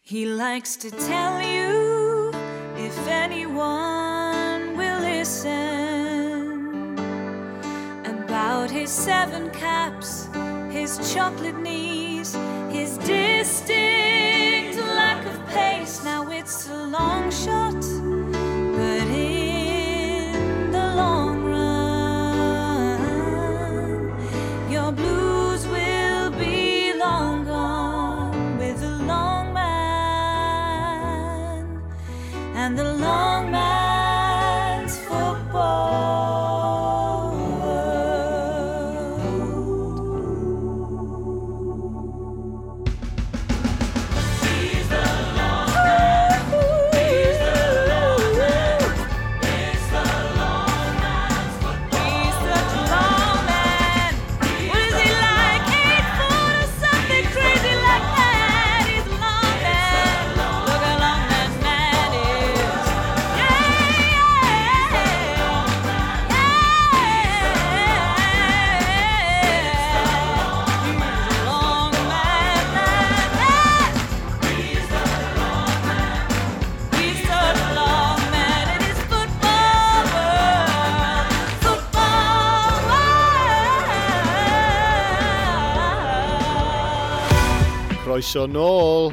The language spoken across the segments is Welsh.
He likes to tell you if anyone will listen about his seven caps, his chocolate knees, his distinct lack of pace. Now it's a long shot, but in the long run, your blues will be long gone with the long man and the long man's football world. He's the long man. He's the long man. It's the long man's football. He's such a long man. What is he like? 8 foot or something crazy like that. He's a long man. Look how long that man is. Yeah, yeah, yeah. He's a long man, man, man. He's such a long man in his football world. Football world. Croeso nôl.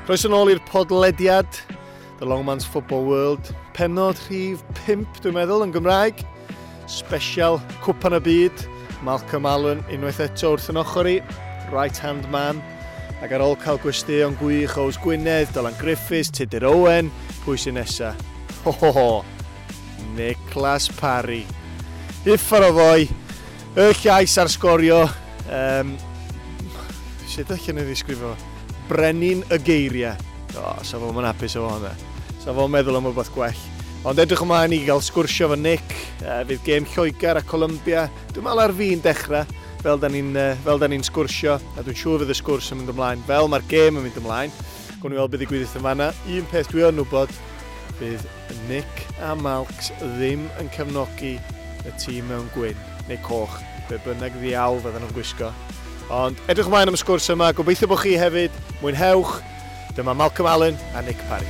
Croeso nôl i'r podlediad, The Long Man's Football World. Pennod rhif 5, dwi'n meddwl, yn Gymraeg. Special Cwpan y Byd. Malcolm Allen unwaith eto wrth yn ochr i. Right hand man. Ac ar ôl cael gwesteion gwych Ows Gwynedd, Dylan Griffiths, Tudur Owen, pwy sy'n nesa? Ho ho ho! Niclas Parry. Uffar o foi, y llais ar sgorio. Sut allan ni ddisgrifio? Brenin y geiriau. O, sa fo'n hapus efo hwnna. Sa fo'n meddwl am rhywbeth gwell. Ond edrych ymlaen i gael sgwrsio efo Nick. Fydd gêm Lloegr a Columbia. Dwi'n meddwl ar fi'n dechrau, fel da ni'n sgwrsio. A dwi'n siŵr fydd y sgwrs yn mynd ymlaen. Fel mae'r gêm yn mynd ymlaen. Gwn i weld beth ddigwydd yn fanna. Un peth dwi yn wybod, bydd Nick a Malks ddim yn cefnogi y tîm mewn gwyn neu coch, be bynnag ddiawl fydden nhw'n gwisgo. Ond edrych ymlaen am y sgwrs yma, gobeithio bod chi hefyd, mwynhewch. Dyma Malcolm Allen a Nick Parry.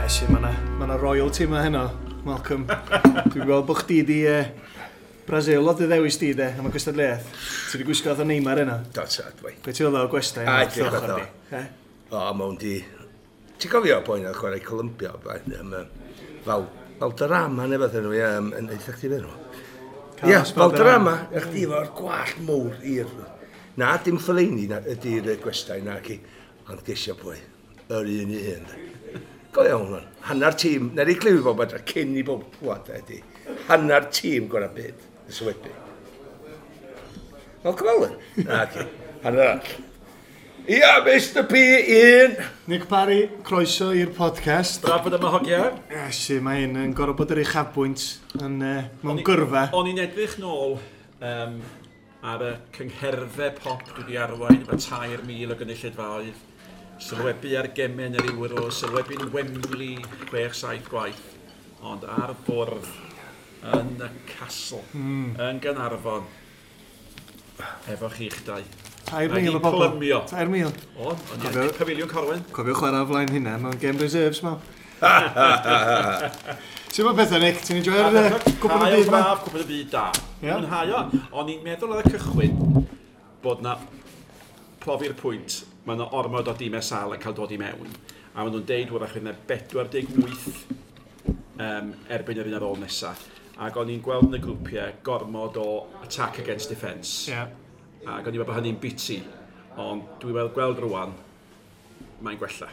Iesu, mae yna ma royalty yma heno, Malcolm. Dwi'n gweld bod chdi di Brazil oedd dy ddewis di de, am y gystadleuaeth. Ti di gwisgo fatha Neymar yna. Do, sad, wei. Be ti'n feddwl o gwestai A, yna? edrych wrth ochr fatha. di? Eh? O, mewn di. Ti'n cofio boi na chwarae Columbia, blaen, fel, Valderrama neu beth enw, ie, yn eitha chdi fe nhw. Ie, Carlos Valderrama, ych chdi efo'r gwallt mowr i'r. Na, dim Fellaini na, ydy'r gwestai na ci, ond gesio pwy, yr un i hun. Go iawn, hwn. Hannar tîm, na i glywed bob adra, cyn i bob clywed ydy, hannar tîm gorau byd, y sylwebu. Malcolm Allen? Na, ci, hannar arall. Ia, Mr P, un. Nick Parry, croeso i'r podcast. Braf bod yma, hogia. Iesu, mae hyn yn gorfod bod yr uchafbwynt yn, mewn gyrfa. O'n i'n edrych nôl ar y cyngherddau pop dwi wedi arwain efo 3,000 o gynulleidfaoedd. Sylwebu ar gemau yn yr Euro, sylwebu'n Wembley 6-7 gwaith. Ond ar bwrdd yn y castle, yn Gaernarfon, efo chi'ch dau. 3,000 o Mae bobl. 'di plymio. 3,000. O, o'n i'n Pafiliwn Corwen. Cofio chwarae o flaen hynna mewn game reserves, ma. Ti'n meddwl pethau, Nick? Ti'n enjoyo'r cwpan y byd ma? Braf, cwpan y byd da. Ie. Mwynhau o. O'n i'n meddwl ar y cychwyn bod na profi'r pwynt, mae yna ormod o dimau sal yn cael dod i mewn. A maen nhw'n deud wrach fydd yna 48 erbyn yr un ar ôl nesaf. Ac o'n i'n gweld yn y grwpiau gormod o attack against defence. Ac o'n i'n meddwl bod hynny'n biti. Ond dwi'n gweld rwan, mae'n gwella.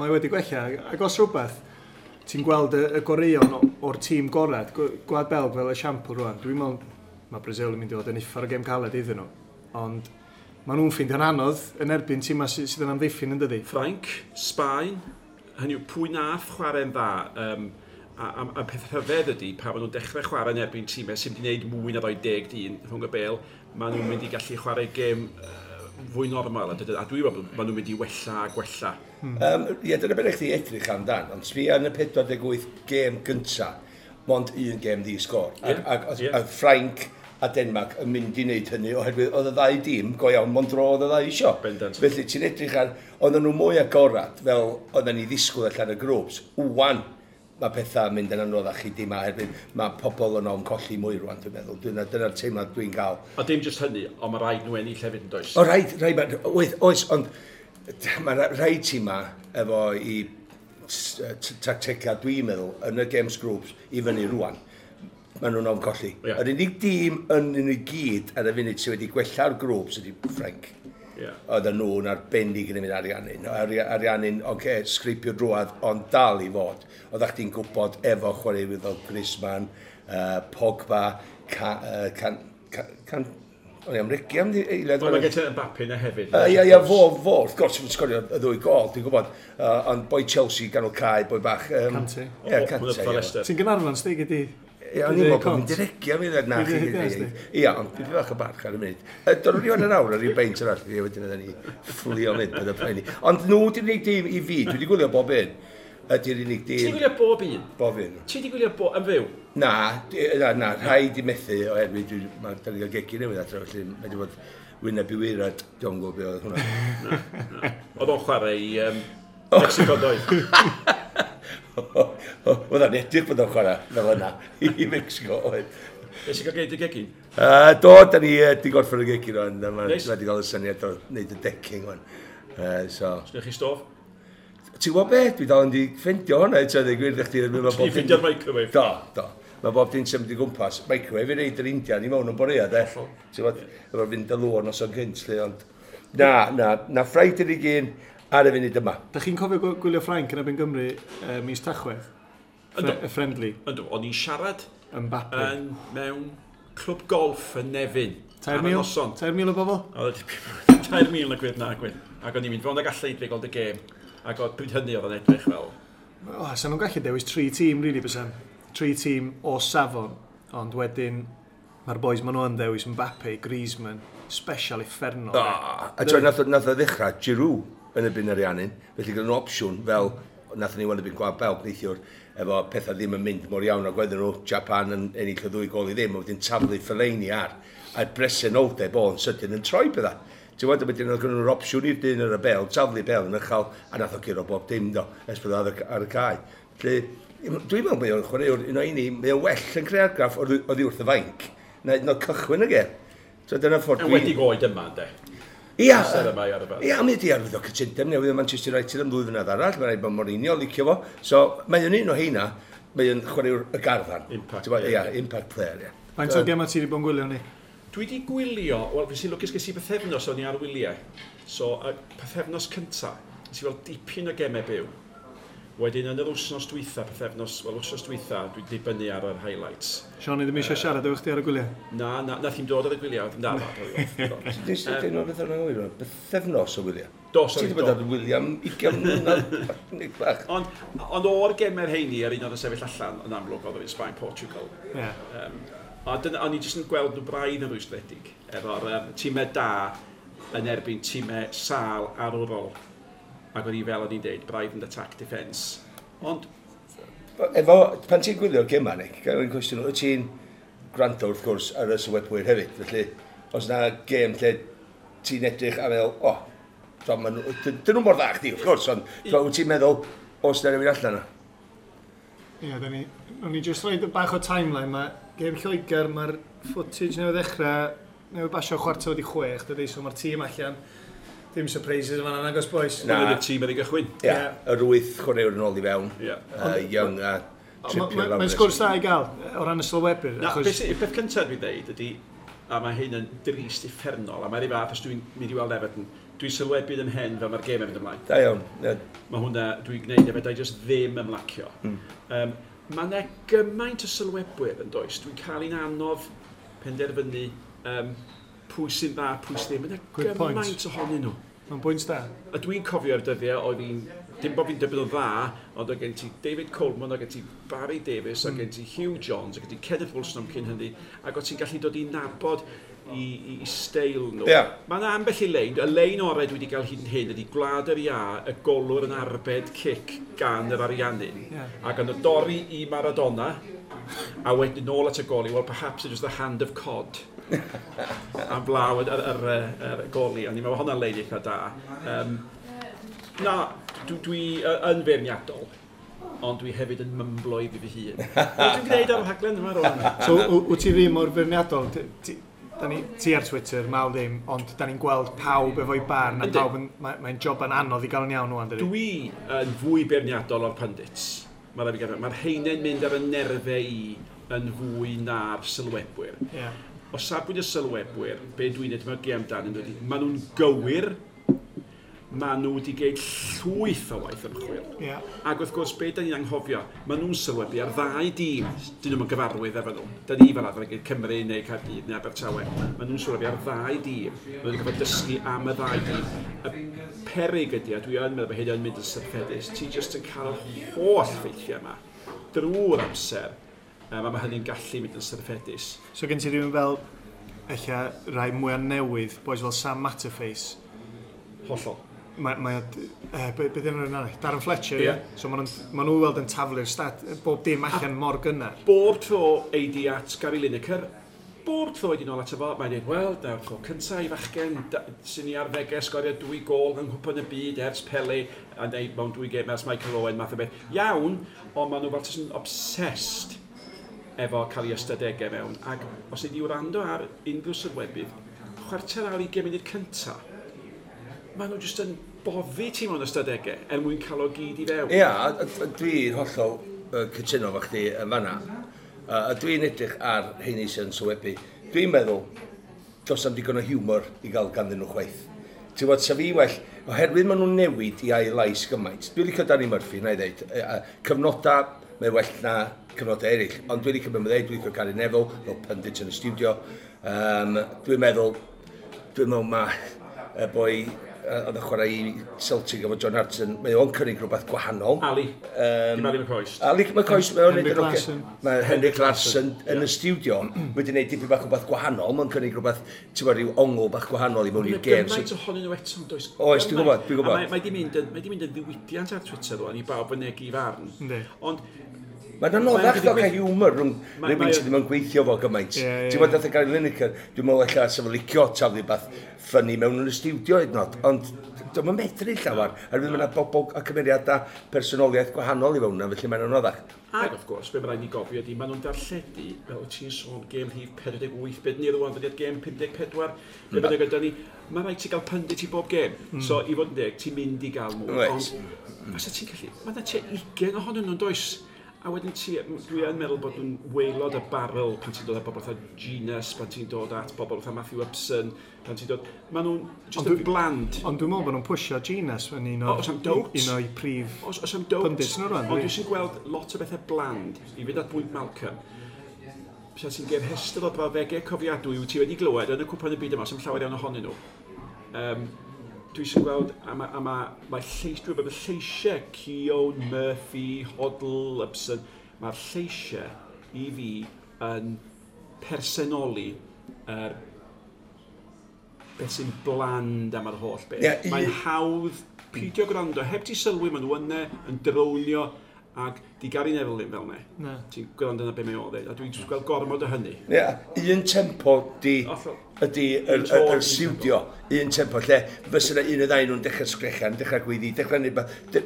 Mae wedi gwella. Ac os rhywbeth, ti'n gweld y goreuon o'r tîm gorau, Gwlad Belg fel esiampl rwan, dwi'n meddwl mae Brazil yn mynd i fod yn uffar o gêm caled iddyn nhw. Ond maen nhw'n ffeindio'n anodd yn erbyn tîmau sydd yn amddiffyn yn dydi. Ffrainc, Sbaen, hynny yw pwy nath chwarae'n dda. A peth rhyfedd ydy, pan maen nhw'n dechrau chwarae yn erbyn tîmau sy'n mynd i wneud mwy na 2 dyn rhwng y bel, maen nhw'n mynd i gallu chwarae gêm fwy normal. A dwi'n meddwl maen nhw'n mynd i wella a gwella. Ie, dyna beth chdi edrych amdan, ond sbia yn y 48 gêm gynta, mond un gêm ddi sgôr. Ac, ac, a Ffrainc a Denmark yn mynd i wneud hynny oherwydd oedd y ddau dîm go iawn mond dro oedd y ddau isio. Bendant. Felly ti'n edrych ar, oedden nhw mwy agorad fel oedden ni ddisgwyl allan y grŵps. Wan, mae pethau yn mynd yn anoddach i dim oherwydd mae pobl yn ofn colli mwy rwan, dwi'n meddwl. Dyna'r teimlad dwi'n gael. A dim jyst hynny, ond mae rhaid nhw ennill hefyd yn does. O, rhaid, oes, oes, ond mae rhaid tîma efo i tactegau, dwi'n meddwl, yn y games groups i fyny rwan. Maen nhw'n ofn colli. Ie. Yr unig dîm yn nhw i gyd ar y funud sydd wedi gwella'r grŵps ydy Ffrainc. Ie. Oedden nhw'n arbennig yn mynd Ariannin. Ariannin, oce, okay, sgripio drwad, ond dal i fod. Oeddech chdi'n gwybod efo chwaraewyr fel Griezmann, Pogba, Ca, Can, Can, Can, o'n i am regi am eiliad. Wel, mae gen ti Mbappe yna hefyd. Ie, ie, fo, wrth gwrs, yn sgorio y ddwy gol, dwi'n gwybod. Ond boi Chelsea ganol cae, boi bach. Kante. Ie, Kante, ie. Ti'n Gaernarfon, stig ydi? Ie, o'n i'n meddwl bod fi'n diregi am eiliad na. Dwi'n deud hynna, Ie, ond dwi'n bach o barch ar y munud. Do'n ni o'n awr ar ryw beint arall, ie, wedyn oedden ni fflio mynd, bydd y poeni. Ond nhw di'r unig dîm i fi, dwi wedi gwylio bob un, ydy'r unig Ti wedi dîm, gwylio bob un? bob un. Ti wedi gwylio bob yn fyw? Na, na, na, rhaid i methu oherwydd mae da ni gael gegin newydd adre, felly mae wedi bod wyneb i waered, dwi'n gwybod beth oedd hwnna. Oedd o'n chwarae i Mexico doedd. Oedd o'n edrych bod o'n chwarae fel yna i Mexico oedd. Nes i gael geid y gegin? Do, da ni di gorffen y gegin o'n, mae Neis. wedi cael y syniad o wneud y decking o'n. So, Sgynnych chi stof? ti'n gwybod be? Dwi dal yn di ffeindio hwnna, eto, dweud gwir i chdi. Mae Ti ffeindio'r microwave? Do, do. Mae bob dim symud i gwmpas. Microwave i reid yr Indian i mewn yn borea, de. Ti'n gwybod, efo'r fynd y lŵr nos o'n gynt, lle, ond... Na, na, na Ffrainc ydy'r un ar y funud yma. Da chi'n cofio gwylio Ffrainc yn erbyn Gymru mis Tachwedd? Yndw. Y friendly, Yndw, o'n i'n siarad Mbappe. yn mewn clwb golff yn Nefyn. Ar y 3,000? noson. 3,000 o bobl? Oedd e 3,000 na gwir na gwir. Ac o'n i'n mynd fewn ag allan i drio gweld y gêm. Ac oedd pryd hynny oedd o'n edrych fel... O, sa nhw'n gallu dewis tri tîm, really, bysan. Tri tîm o safon, ond wedyn mae'r boys maen nhw yn dewis Mbappe, Griezmann, special uffernol. Ah, a ti'n nath, nath o ddechrau Giroud yn erbyn Ariannin, felly gyda nhw opsiwn fel nath ni wan erbyn Gwlad Belg neithiwr, efo pethau ddim yn mynd mor iawn ag oedden nhw, Japan yn ennill y ddwy gol i ddim, a wedyn taflu Fellaini ar, a'r bresenoldeb o'n sydyn yn troi pethau. Ti'n gwybod, wedyn oedd gynnon nhw'r opsiwn i'r dyn ar y bel, taflu bel yn uchel, a nath o guro bob dim do, ers bod o ar y cae. Felly, dwi'n meddwl mae o'n chwaraewr un o un mae o'n well yn creu argraff oddi wrth y fainc, na hyd yn oed cychwyn y gêm. So dyna ffordd Yn wedi oed yma, ynddo. Ia, Amser yma i arfer. Ia, mi wedi arwyddo cytundeb newydd o Manchester United am ddwy flynedd arall, mae'n rhaid bod Mourinho licio fo. So, mae o'n un o heina, mae o'n chwaraewr y garfan. Impact Ti'n gwbod, player, Ia, impact player, ia. Faint o gemau ti wedi bod yn gwylio ni? Dwi wedi gwylio, wel, fi sy'n lwcus ges i bythefnos o'n i ar wyliau. So, y pythefnos cynta, nes i weld dipyn o gemau byw. Wedyn, yn yr wythnos dwytha, pythefnos, wel, wythnos dwytha, dwi'n dibynnu ar yr highlights. Sean, i ddim eisiau siarad efo chdi ar y gwyliau. Na, na, nath i'n dod ar y gwyliau. Na, na, na, na. Nes i dweud beth o'n anghywir, bythefnos o wyliau. Do, Ti sori, wedi bod do. ar wyliau am 20 mlynedd, Nick bach. Ond o'r gemau'r heini, yr un oedd yn sefyll allan, yn amlwg oedd yr un Sbaen Portugal. Ie. A dyna, o'n i jyst yn gweld nhw braidd yn rwystredig, efo'r tîmau da yn erbyn tîmau sâl arwrol. Ac o'n i fel o'n i'n deud, braidd yn attack defence. Ond, Efo, pan ti'n gwylio'r gema, Nick, gael un cwestiwn, wyt ti'n gwrando wrth gwrs ar y sylwebwyr hefyd, felly os na gêm lle ti'n edrych a meddwl, o, oh, dyn nhw mor dda chdi, wrth gwrs, ond wyt ti'n meddwl, os na rhywun allan yna? Ie, da ni... O'n i jyst rhoid bach o timeline. Mae gêm Lloegr, mae'r footage newydd ddechrau, newydd basio 5:45, dydy, so mae'r tîm allan. Dim surprises yn fan'na, nagos boys. Na. Dyna y tîm ar ei gychwyn. Ie, Ie. yr wyth chwaraewr yn ôl i fewn. Ie. Young a Trippier lawr. Mae'n sgwrs da i gael, o ran y sylwebyr. Na, achos- beth, beth cyntaf dwi'n dweud ydy, a mae hyn yn drist uffernol, a mae'r un fath os dwi'n mynd i weld Everton, dwi'n sylwebu yn hen fel mae'r gêm yn mynd ymlaen. Da iawn. Ie. Mae hwnna, dwi'n gwneud efo, da i just ddim ymlacio. Mae yna gymaint o sylwebwyr yn does, dwi'n cael un anodd penderfynu pwy sy'n dda, pwy sy'n ddim. Mae yna Good point. gymaint ohonyn nhw. Mae'n bwynt da. A dwi'n cofio'r dyddiau oedd hi'n, dim bod fi'n dweud bod o'n dda, ond oedd gen ti David Coleman, oedd gen ti Barry Davies, oedd gen ti Hugh Jones, oedd gen ti Kenneth Wilson am cyn hynny, ac oedd ti'n gallu dod i nabod i steil nhw. Ie. Mae yna ambell i lein, y lein orau dwi wedi cael hyd yn hyn ydy Gwlad yr Ia, y golwr yn arbed cic gan yr Ariannin. Ie. Ac yn y dorri i Maradona, a wedyn nôl at y goli, well perhaps it was the hand of cod. Am blaw yr goli, ond i'n meddwl hwnna'n lein eitha da. Na, dwi yn feirniadol, ond dwi hefyd yn mymblo i fi fy hun. Dwi'n gwneud ar y rhaglen yma rwan. So, wyt ti ddim mor feirniadol? Ti ar Twitter, mal ddim, ond da ni'n gweld pawb efo'i barn, a pawb yn, mae'n job yn anodd i gael yn iawn rwan, dydi? Dwi yn fwy beirniadol o'r pundits. Mae'r ma rheina'n mynd ar y nerfau i yn fwy na'r sylwebwyr. Yeah. O safbwynt y sylwebwyr, be dwi'n edmygu amdanyn nhw ydy, maen nhw'n gywir, maen nhw wedi gwneud llwyth o waith ymchwil. Yeah. Ac wrth gwrs, be da ni'n anghofio, maen nhw'n sylwebu ar ddau dîm, dyn nhw'n gyfarwydd efo nhw. Da ni fel arfer yn gwneud Cymru neu Caerdydd neu Abertawe. Maen nhw'n sylwebu ar ddau dîm. Maen nhw wedi gorfod dysgu am y ddau dîm. Y peryg ydy, a dwi yn meddwl bod hyn yn mynd yn syrffedus, ti jyst yn cael yr holl ffeithiau yma drwy'r amser, a mae hynny'n gallu mynd yn syrffedus. So gen ti rhywun fel, ella, rai mwyaf newydd, boys fel Sam Matterface. Hollol. Mae be dyn nhw'n arall? Darren Fletcher, ie? Ie. Yeah. So maen nhw weld yn taflu'r stat, bob dim allan mor gynnar. Bob tro ei di at Gary Lineker, bob tro ei di nôl ato fo, mae'n dweud, wel, dyna'r tro cyntaf i fachgen sy'n ni arddegau sgorio 2 gôl yng Nghwpan y Byd ers Pele, a neu mewn 2 gêm ers Michael Owen, math o beth. Iawn, ond maen nhw fel jyst yn obsessed efo cael ei ystadegau mewn. Ac os ei di wrando ar unrhyw sylwebydd, 20 munud cyntaf, maen nhw jyst yn boddi ti mewn ystadegau er mwyn cael o gyd i fewn. Ia, dwi'n hollol cytuno efo chdi yn fanna. A dwi'n edrych ar rheini sy'n sylwebu. Dwi'n meddwl, does am digon o hiwmor i gael ganddyn nhw chwaith. Ti'n gwybod, sa fi well, oherwydd maen nhw'n newid i ail lais gymaint. Dwi'n licio Danny Murphy, na i ddeud. Cyfnodau, mae well na cyfnodau eraill. Ond dwi'n licio beth mae'n dweud, dwi'n licio Gary Neville, fel pundit yn y studio. Dwi'n meddwl mae y boi oedd yn chwarae i Celtic efo John Hartson, mae o'n cynnig rhywbeth gwahanol. Ali. Dim Ali McCoist. Ali McCoist, mae o'n Henrik neud yn ocê. Larsson. Mae Henrik Larsson yn y studio wedi gwneud dipyn bach o beth gwahanol, mae'n cynnig rhywbeth, ti'n gwbod, rhyw ongl bach gwahanol i mewn i'r gêm. Mae gymaint ohonyn nhw eto, does? Oes, dwi'n gwbod, dwi'n gwbod. A mae di mynd yn ddiwydiant ar Twitter rwan i bawb fynegi farn. Yndi. Ond Mae'n anoddach Mae'n ddo cael hiwmor rhwng rhywun sydd ddim yn gweithio fo gymaint. Ie, ie, Ti'n gwbod, nath y Gary Lineker, dwi'n meddwl ella sa fo licio taflu beth ffynnu mewn yn y studio hyd yn oed, ond dwi'm yn medru llawer. Oherwydd mae yna bobl a cymeriadau personoliaeth gwahanol i fewn yna, felly mae'n anoddach. Ac wrth gwrs, be mae rhaid ni gofio ydy, maen nhw'n darlledu, fel wyt ti'n sôn, gêm rhif 48, beth ni rwan, dydi'r gêm 54, be bynnag ydy ni, mae rhaid ti gael pundit i bob gêm. So, i fod yn deg, ti'n mynd i gael mwy. Reit. Ond, fysa ti'n gallu, mae yna tua 20 ohonyn nhw'n does? A wedyn ti, dwi yn meddwl bod nhw'n waelod y barrel pan ti'n dod at bobl fatha Genus, pan ti'n dod at bobl fatha Matthew Upson, pan ti'n dod... Maen nhw'n just Ond yn bland. Ond dwi'n meddwl bod nhw'n pwysio Genus yn un O, o'r oes am doubt. un o'i prif Os am doubt. pundits nhw rwan. Ond dwi sy'n gweld lot o bethau bland. I fynd at bwynt Malcolm, Sa ti'n geir rhestr o brawddegau cofiadwy wyt ti wedi glywed yn y cwpan y byd yma, sy'n llawer iawn ohonyn nhw. Dwi sy'n gweld, a mae lleis, dwi'n meddwl, lleisiau Keown, Murphy, Hoddle, Upson, mae'r lleisiau i fi yn personoli yr beth sy'n bland am yr holl beth. Ie, Mae'n hawdd peidio gwrando, heb ti sylwi, maen nhw yna yn drownio ac di Gary Neville ddim fel 'ne. Na. Ti'n gwrando na be mae o ddeud, a dwi'n jyst gweld gormod o hynny. Ie, un tempo di Hollol. ydy Un tôn, yr un stiwdio, un tempo, lle fysa yna un o ddau nhw'n dechrau sgrechan, dechrau gweiddi, dechrau neud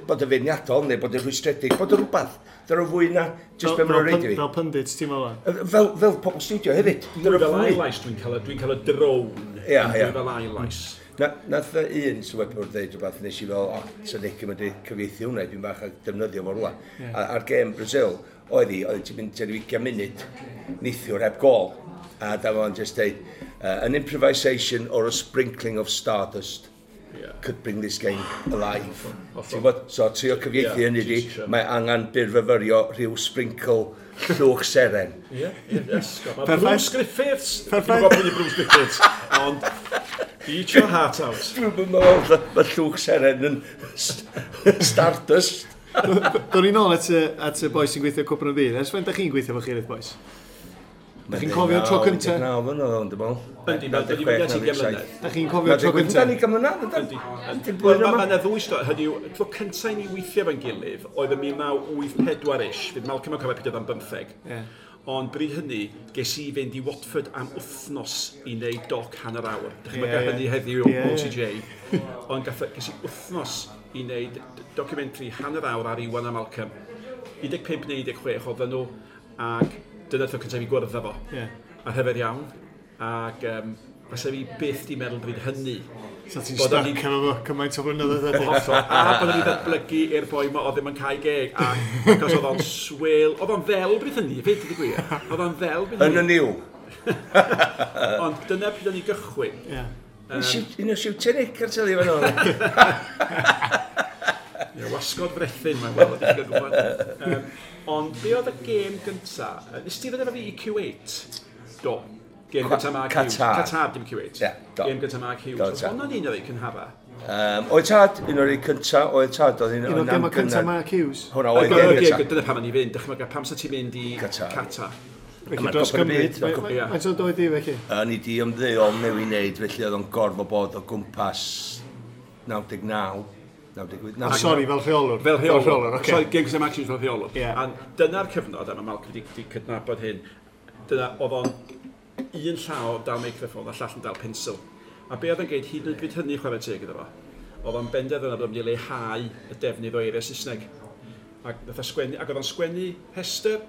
bod yn feirniadol neu bod yn rhwystredig, bod yn rhywbeth. Dyna fwy na jyst be maen nhw'n reid i fi. Fel pundits, ti'n meddwl? Fel pobl stiwdio hefyd. Mwy Dyna fel fwy. ail-lais, dwi'n cael y drone. Ie, Mwy ie. fel ail-lais. Nath y un sylwebwr ddeud rhywbeth nes i fel, o, sa Nick yn mynd i cyfieithu hwnna, dwi'n bach a defnyddio fo rwla. Ie. A'r gêm Brazil, oedd hi, oedd ti'n mynd tua 20 munud neithiwr heb gol. A da fo'n just deud, an improvisation or a sprinkling of stardust could bring this game alive. Ti'n gwbod? So, trio cyfieithu Ie, hynny di, ti isio. mae angen byrfyfyrio rhyw sprinkle llwch seren. Ie, ie, yes. Mae Perffaith. Bruce Griffiths. Perffaith. Dwi'n gwybod pwy ydi Bruce Griffiths, ond eat your heart out. Dwi'n meddwl mae llwch seren yn stardust. Do'n i'n ôl at y boi sy'n gweithio Cwpan y Byd. Ers faint da chi'n gweithio efo chi'r boys? Da chi'n cofio'r tro cynta? 19 mlynedd o'n dwi'n meddwl. Yndi, mae wedi mynd at 20 mlynedd. Da chi'n cofio'r tro Da cynta? ni gymryd mlynedd, Yndi. yndyn? Wel, mae yna ddwy stori, hynny yw, tro cyntaf i ni weithio efo'n gilydd oedd yn 1984-ish, fydd Malcolm yn cofio pryd oedd o'n 15. Ie. Ond bryd hynny, ges i fynd i Watford am wythnos i wneud doc hanner awr. Dychmyga hynny heddiw o OTJ. Ond ges i wythnos i wneud documentary hanner awr ar Iwan a Malcolm. 15 neu 16 oedden nhw, ac dyna'r tro cyntaf i gwrdd â fo. A rhyfedd iawn. Ac fasa fi byth di meddwl bryd hynny. So ti'n stuck efo fo cymaint o flynyddoedd wedyn. Hollol. A bod ni ddatblygu i'r boi ma oedd ddim yn cael geg. A achos oedd o'n swil. Oedd o'n ddel bryd hynny, fyd, i gwir. Oedd o'n ddel bryd hynny. Yn y niw. Ond dyna pryd o'n i gychwyn. Un o siwtio Nick ar teli fan o'n. Ie, wasgod frethyn mae'n weld, ydych chi'n gwybod. Ond be oedd y gêm gynta? Nes ti ddod efo fi i Q8? Do. Gêm gyntaf Mark Hughes. Qatar, dim Q8. Yeah, do. Gêm gyntaf Mark Hughes. Oedd hwnna'n un o'r ei cynhara? Oedd tad, un o'r ei cynta, oedd tad, oedd un o'r gêm cyntaf Mark Hughes? Hwna oedd gêm gyntaf. Dyna pam o'n i fynd, dychmyga, pam sa ti'n mynd i Qatar? Felly dros Cymru. Faint o doedd di felly? O'n i di ymddeol neu i wneud, felly oedd o'n gorfod bod o gwmpas 99. 98. Sori, fel rheolwr. Fel rheolwr, oce. Sorry, gêm gyntaf Mark Hughes fel rheolwr. A dyna'r cyfnod, a mae Malcolm wedi cydnabod hyn, dyna oedd o'n un llaw dal meicroffon a llall yn dal pensil. A be oedd yn geid hyd yn oed bryd hynny chwarae teg iddo fo, oedd o'n benderfynol bod o'n mynd i leihau y defnydd o eiriau Saesneg. Ac, nath o sgwennu, ac oedd o'n sgwennu rhestr,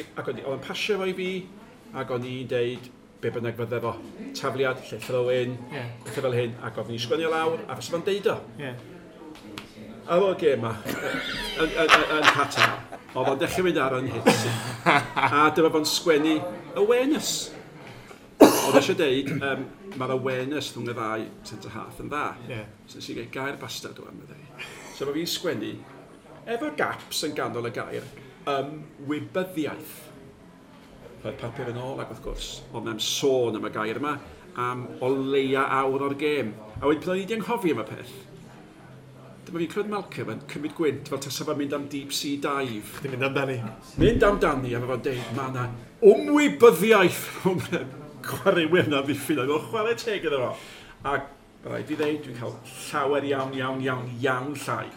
ac oedd o'n pasio fo i fi, ac o'n i'n deud be bynnag fydde fo, tafliad, lle throw-in, pethau fel hyn, ac oedd ni'n sgwennu o lawr, a fysa fo'n deud o. Ar ôl gêm ma, yn Qatar, oedd o'n dechrau mynd ar yn hits. A dyma fo'n sgwennu awareness. Oedd eisiau deud, mae'r awareness rhwng y ddau centre half yn dda. So nes i gael gair bastard o am y ddau. So mae fi'n sgwennu, efo gaps yn ganol y gair, ymwybyddiaeth. Roedd papur yn ôl ac wrth gwrs, oedd na'n sôn am y gair yma, am o leia awr o'r gêm. A wedyn pan o'n i wedi anghofio am y peth, dyma fi'n clywed Malcolm yn cymryd gwynt fel tasa fo'n mynd am deep sea dive. Chdi'n mynd amdani. Mynd amdani a mae fo'n deud, mae yna ymwybyddiaeth rhwng y chwaraewyr na ddiffyn. Oedd o'n chwarae teg iddo fo. Ac rhaid i ddeud, dwi'n cael llawer iawn, iawn, iawn, iawn llai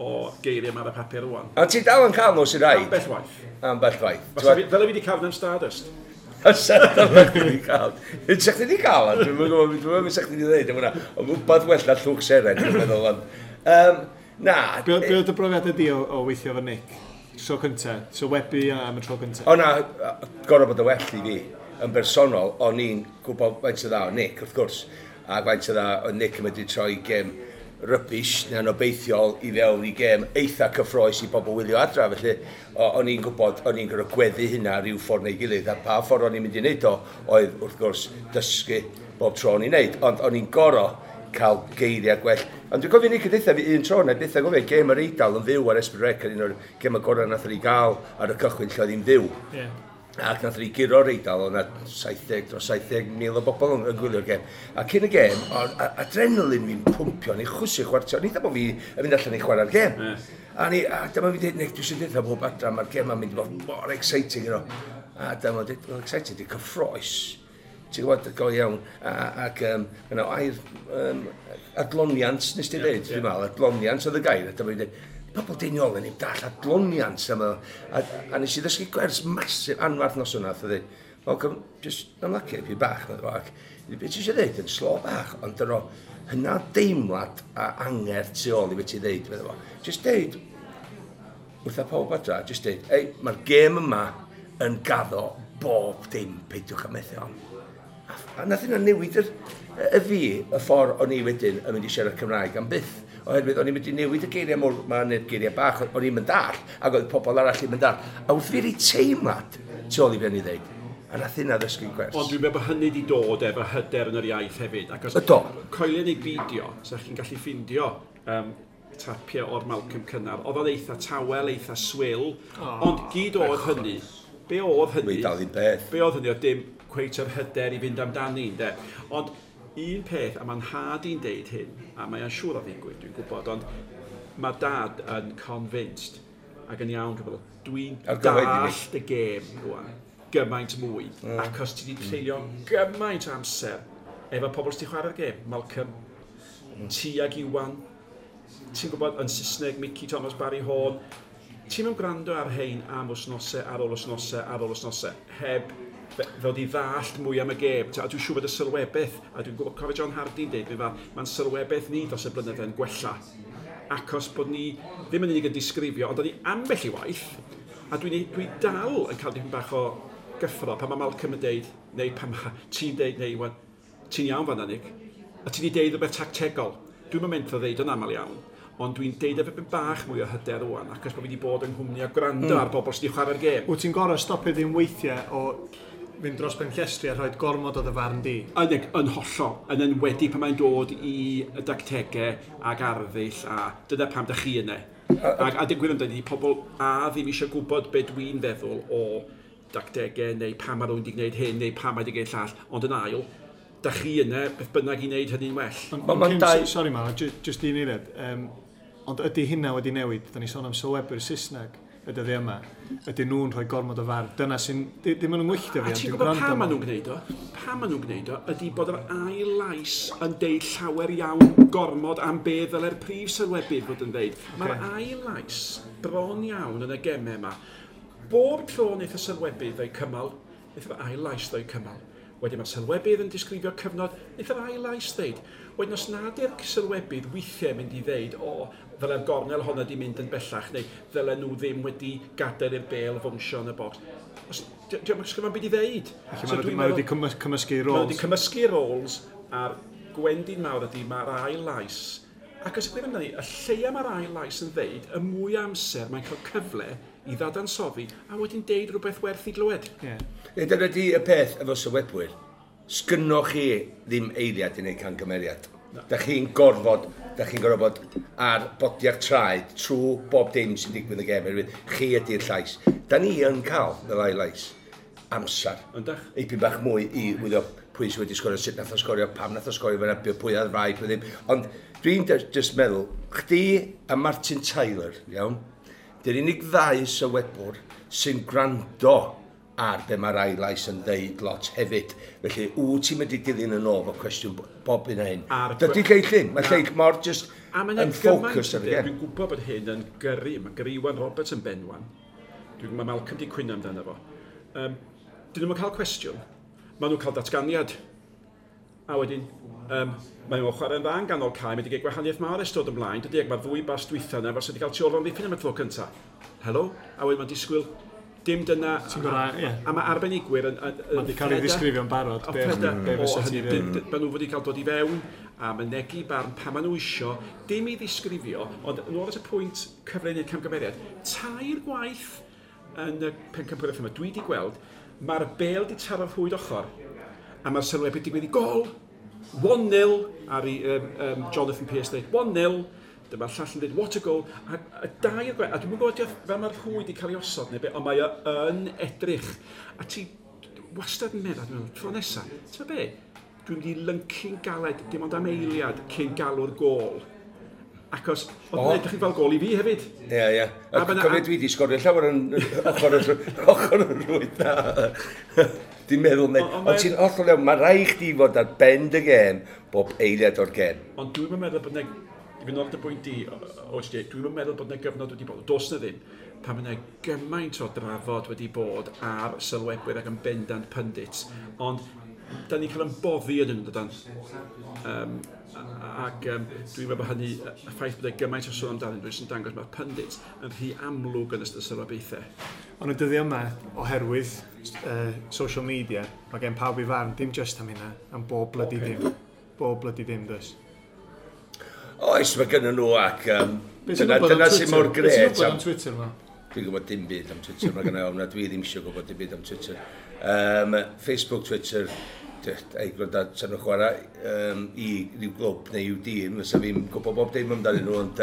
o geiriau yma ar y papur rwan. A ti dal yn cael nhw sy'n rhaid? Ambell waith. Ambell waith. Fel y fi wedi cael yn Stardust. Fysa chdi wedi cael. Sa chdi wedi cael, dwi'n gwybod, dwi'n meddwl sa chdi wedi dweud, hwnna. Ond wbeth well na llwch seren, dwi'n meddwl, ond... Na. Be oedd y brofiadau di o weithio efo Nick? Tro cynta, so webu am y tro cynta? O na, gorau bod y well i fi. Yn bersonol, o'n i'n gwybod faint o dda o Nick, wrth gwrs. A faint o dda o Nick yn medru troi gêm rubbish neu'n obeithiol i fewn i gêm eitha cyffroes i bobl wylio adra. Felly, o'n i'n gwybod, o'n i'n gorfod gweddu hynna rhyw ffordd neu gilydd. A pa ffordd o'n i'n mynd i wneud o, oedd wrth gwrs dysgu bob tro o'n i'n wneud. Ond o'n i'n gorfod cael geiriau gwell. Ond dwi'n cofio Nick yn deutha fi un tro, na byth yn gofio, gêm yr Eidal yn fyw ar S4C, un o'r gêm y gorau nath ni gael ar y cychwyn lle oedd hi'n fyw. Ac nath ni guro'r Eidal, oedd 'na 70 dros 70,000 o bobl yn gwylio'r gêm. A cyn y gêm, oedd adrenalin fi'n pwmpio, ni'n chwysu chwarter, ni'n dweud bod fi yn mynd allan i chwarae'r gêm. A dyma fi'n dweud, Nick, dwi eisiau dweud bob adra, mae'r gêm yn mynd i fod mor exciting, you know. A dyma fi'n dweud, well, exciting, di cyffroes. Ti'n gwybod, go iawn, ac yna, air adloniant, nes ti dweud, dwi'n meddwl, adloniant oedd y gair, a dyma fi'n dweud, pobl deiniol yn ei dall adloniant am a nes i ddysgu gwers masif anfarth nos yna, oedd dweud, Malcolm, just ymlacio fi bach, ac beth ti eisiau dweud, yn slo bach, ond dyna hynna deimlad a angerdd tu ôl i beth ti dweud, meddwl fo. Just deud, wrtha pawb adra, just deud, ei, mae'r gêm yma yn gaddo bob dim, peidiwch â methu on. A nath hynna newid y fi, y ffordd o'n i wedyn yn mynd i siarad Cymraeg am byth. Oherwydd o'n i'n mynd i newid y geiriau mawr, ma' neu'r geiriau bach, o'n i'n mynd dall, ac oedd pobl arall i'n mynd dall. A wrth fi rei teimlad tu ôl i be o'n i ddeud, a nath hynna ddysgu gwers. Ond dwi'n meddwl bod hynny wedi dod efo hyder yn yr iaith hefyd. Ac os coelio neu beidio, sa chi'n gallu ffindio tapiau o'r Malcolm cynnar. Oedd o'n eitha tawel, eitha swil, ond gyd oedd hynny. Be oedd hynny? Dwi dal un peth. Be oedd hynny oedd dim cweit yr hyder i fynd amdani, ynde. Ond un peth, a mae'n nhad i'n deud hyn, a mae'n siŵr o ddigwydd, dwi'n gwybod, ond mae dad yn convinced, ac yn iawn, dwi'n meddwl, dwi'n dallt y gêm rwan, gymaint mwy, achos ti wedi treulio gymaint o amser efo pobl sydd wedi chwarae'r gêm, Malcolm, ti ag Iwan, ti'n gwybod, yn Saesneg, Mickey Thomas, Barry Horne, Ti'n mynd gwrando ar hein am wsnosau, ar ôl wsnosau, ar ôl wsnosau, heb ddod i ddallt mwy am y gêm. A dwi'n siŵr bod y sylwebaeth, a dwi'n gwybod cofio John Hardy'n deud, mae'n sylwebaeth ni dros y blynyddoedd yn gwella. Achos bod ni ddim yn unig yn disgrifio, ond ni ambell i waith, a dwi dal yn cael dipyn bach o gyffro pan mae Malcolm yn deud, neu pan mae ti'n deud, neu Iwan, ti'n iawn fan'na, Nick, a ti wedi deud rhywbeth tactegol. Dwi'm yn mentro ddeud yn aml iawn, ond dwi'n deud efo bach mwy o hyder rwan, achos bod fi wedi bod yng nghwmni a gwrando ar bobl sydd wedi chwarae'r gêm. Wyt ti'n gorau stopio ddim weithiau o fynd dros ben llestri a rhoi gormod o dy farn di? Yn hollol, yn enwedig pan mae'n dod i y dactegau ac arddull, a dyna pam da chi yna. A digwydd amdani, pobl a ddim eisiau gwybod be dwi'n feddwl o dactegau, neu pam mae rhywun wedi gwneud hyn, neu pam mae wedi gwneud llall, ond yn ail, da chi yna, beth bynnag i wneud hynny'n well. Sorry Mal, just un eiliad. Ond ydy hynna wedi newid? Da ni sôn am sylwebwyr Saesneg y dyddiau yma. Ydy nhw'n rhoi gormod o farn? Dyna sy'n... Dim yn yngwylltio fi, ond dwi'n gwrando. A ti'n gwybod pam maen nhw'n gwneud o? Pam maen nhw'n gwneud o ydy bod yr ail lais yn deud llawer iawn gormod am be ddyle'r prif sylwebydd fod yn deud. Okay. Mae'r ail lais bron iawn yn y gemau yma. Bob tro wnaeth y sylwebydd ddeu cymal, wnaeth yr ail lais ddeu cymal. Wedyn mae'r sylwebydd yn disgrifio cyfnod, wnaeth yr ail lais ddeud. Wedyn os nad yw'r sylwebydd weithiau mynd i ddeud, o, ddyle'r gornel honna di mynd yn bellach, neu ddyle nhw ddim wedi gadael i'r bêl fownsio yn y bocs. Diolch yn sgynno'n byd i ddeud. Felly so, mae wedi cymysgu roles. Mae wedi cymysgu roles, a'r gwendid mawr ydy mae'r ail lais. Ac os y gwir amdani, y lleia mae'r ail lais yn ddeud, y mwy amser mae'n cael cyfle i ddadansoddi a wedyn deud rhywbeth werth i glywed. Yeah. Dyna di y peth efo sylwebwyr. Sgynnoch chi ddim eiliad i wneud camgymeriad. No. Da chi'n gorfod bod ar bodiau'r traed trwy bob dim sy'n digwydd y gêm. Chi ydy'r llais. Da ni yn cael, fel ail lais, amser. Yndach? Eipyn bach mwy i wyddo pwy sydd wedi sgorio, sut nath o sgorio, pam nath o sgorio, fyna, pwy oedd rai, pwy ddim. Ond dwi'n just meddwl, chdi a Martin Tyler, iawn, dy'r unig ddau sylwebwr sy'n gwrando ar be mae'r ail lais yn ddeud lot hefyd. Felly, wyt ti'n mynd i dilyn yn ôl fo cwestiwn bob un hyn. Dydy lleill ddim. Mae lleill mor just yn ffocws ar y gem. Dwi'n gwybod bod hyn yn gyrru. Mae gyrru Iwan Roberts yn benwan. Dwi'n mae Malcolm di cwyno amdano fo. Dyn nhw'n cael cwestiwn. Maen nhw'n cael datganiad. A wedyn, mae nhw'n chwarae'n dda yn ganol cae, mae wedi cael gwahaniaeth mawr ers dod ymlaen. Dydy, ac mae'r ddwy bas dwytha yna, fel sydd wedi cael tu ôl o'n ddiffyn am y tro cyntaf. Helo? A wedyn mae'n disgwyl dim dyna... Gorau, yeah. A mae arbenigwyr yn... Mae wedi cael ei ddisgrifio'n barod. Be fysa ti ddim. Maen nhw wedi cael dod i fewn a mynegi barn pa maen nhw isio, dim i ddisgrifio, ond yn ôl at y pwynt cyfle i wneud camgymeriad, 3 gwaith yn y pencampwriaeth yma, dwi wedi gweld, mae'r bêl di taro'r rhwyd ochr, a mae'r sylwebydd digwydd i gol, 1-0, ar i Jonathan Pearce dweud, 1-0, dyma'r llall yn dweud, what a goal, a dair gwaith, a dwi'n gwybod fel mae'r rhwyd wedi cael ei osod neu be, ond mae o yn edrych. A ti wastad yn meddwl, dwi'n meddwl, tro nesaf, ti'n be, dwi'n mynd i lyncu'n galed, dim ond am eiliad cyn galw'r gôl. Achos, oedd yn edrych fel gôl i fi hefyd. Ie, ie. A cofio dwi wedi sgorio llawer yn ochr y rhwyd na. Dwi'n meddwl, ond ti'n hollol iawn, mae rhaid chdi fod ar ben dy gêm bob eiliad o'r gêm. Ond dwi'n meddwl bod yna, i fynd o'r dy bwynt di, OHD, dwi'n meddwl bod yna gyfnod wedi bod, does na ddim, pan mae yna gymaint o drafod wedi bod ar sylwebwyr ac yn bendant pundits, ond da ni'n cael yn boddi yn nhw, dydan. Ac dwi'n meddwl bod hynny, y ffaith bod e gymaint o sôn amdanyn nhw, sy'n dangos mae'r pundits yn rhy amlwg yn ystod sylwebaethau. Ond y dyddiau yma, oherwydd social media, mae gen pawb i farn, dim just am hynna, am bob bloody dim. Bob bloody dim, does. Oes, mae gynnu nhw ac dyna sy'n mor gret. Beth ti'n gwybod am Twitter yma? Dwi'n gwybod dim byd am Twitter, mae gynnu ofn, dwi ddim eisiau gwybod dim byd am Twitter. Facebook, Twitter, ei gwrando, sa'n nhw'n chwarae i ryw glwb neu i'w dîm, fysa fi'n gwybod bob dim amdanyn nhw, ond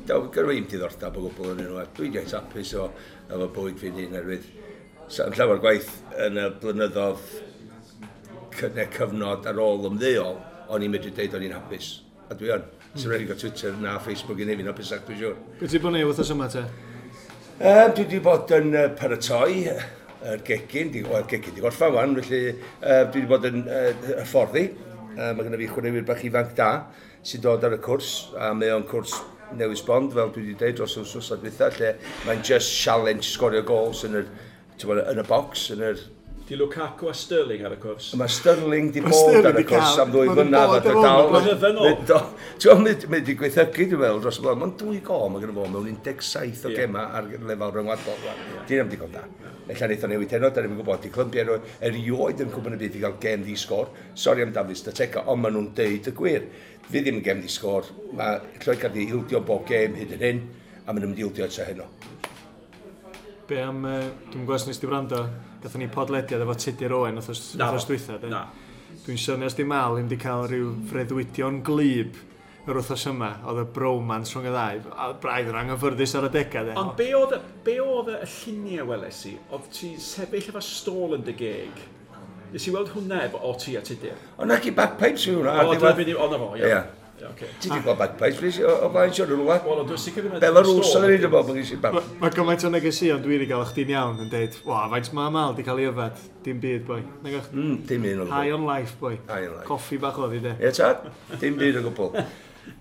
gyda fi'n diddordeb o gwbl yn nhw, a dwi'n reit hapus o efo bywyd fi'n hun, oherwydd sa'n llawer gwaith yn y blynyddoedd cyfnod ar ôl ymddeol, o'n i'n medru deud o'n i'n hapus, a dwi yn. Sy'n rhaid i gael Twitter na Facebook i neu fi'n hapusach, dwi'n siŵr. Be ti bod yn ei wythnos yma te? Dwi wedi bod yn paratoi yr gegin, gegin di gorffan wan, felly dwi wedi bod yn hyfforddi. Mae gennym fi chwaraewyr bach ifanc da sy'n dod ar y cwrs, a mae o'n cwrs newydd sbond, fel dwi wedi dweud dros yr wythnos dwytha, lle mae'n just challenge sgorio goals yn yr, ti'n yn y box, yn yr. Di Lukaku a Sterling ar y cwrs. Mae Sterling di bod ar y cwrs am 2 flynedd a dal. Blynydde nôl. Ti'n gwybod, mae di gweithygu, dwi'n meddwl, dros y blwyddyn. Mae'n 2 gol, mae gen fo mewn 17 o gema ar lefel rhyngwladol. Dyn nhw'n digon da. Ella wnaeth o newid heno, da ni'n gwybod, di Clymbia erioed yn Cwpan y Byd i gael gem di sgôr. Sori am Dafydd Statega, ond maen nhw'n deud y gwir. Fi ddim yn gem di sgôr. Mae Lloegr di ildio bob gem hyd yn hyn, a maen nhw'n mynd i ildio eto heno. Be am, dwi'n gwybod os nes di wrando, gathon ni podlediad efo Tudur Owen wythnos dwytha. Na. Dwi'n synnu os di Mal ddim di cael rhyw freuddwydion glyb yr wythnos yma, oedd y bromance rhwng y ddau, a braidd yn anghyffyrddus ar y degau. De. Ond be oedd y lluniau weles i? Oedd ti sefyll efo stôl yn dy geg? Nes i weld hwnna efo o ti a Tudur? O na chi bagpipes yw hwnna. O, dyna beth i... O, na fo, ia. Okay. Ti wedi gweld bagpipes, please, o blaen siwr yn rhywle? Wel, ond dwi'n sicr ddim yn... Belarus oedd yn ei bod, mae'n gysi bag. Mae gymaint o negeseuon dwi wedi gael chdi'n iawn yn deud, wa, faint mae Mal di cael ei yfed? Dim byd, boi. Dim un o gwbl. High on life, boi. High on life. Coffi bach oedd i, de. Ie, tad? Dim byd o gwbl.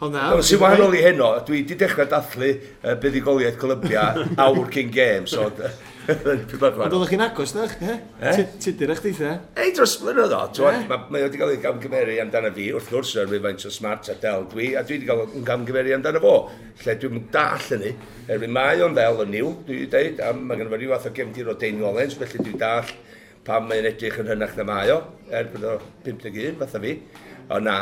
Ond na... Sy'n wahanol i heno, dwi wedi dechrau dathlu buddugoliaeth Columbia awr cyn gêm, so... Ond oeddech chi'n agos, dach? Tudur eich deitha? Ei, dros blynedd o. Mae wedi cael ei gamgymeru amdano fi, wrth gwrs, yr rhywfaint o smart a del dwi, a dwi wedi cael ei gamgymeru amdano fo. Lle dwi'n dall hynny, erwydd mae o'n ddel yn niw, dwi wedi dweud, a mae gen i fo rhyw fath o gefndir o Dane Rollins, felly dwi'n dall pam mae'n edrych yn hynach na mae o, er bod o 51, fatha fi. O na,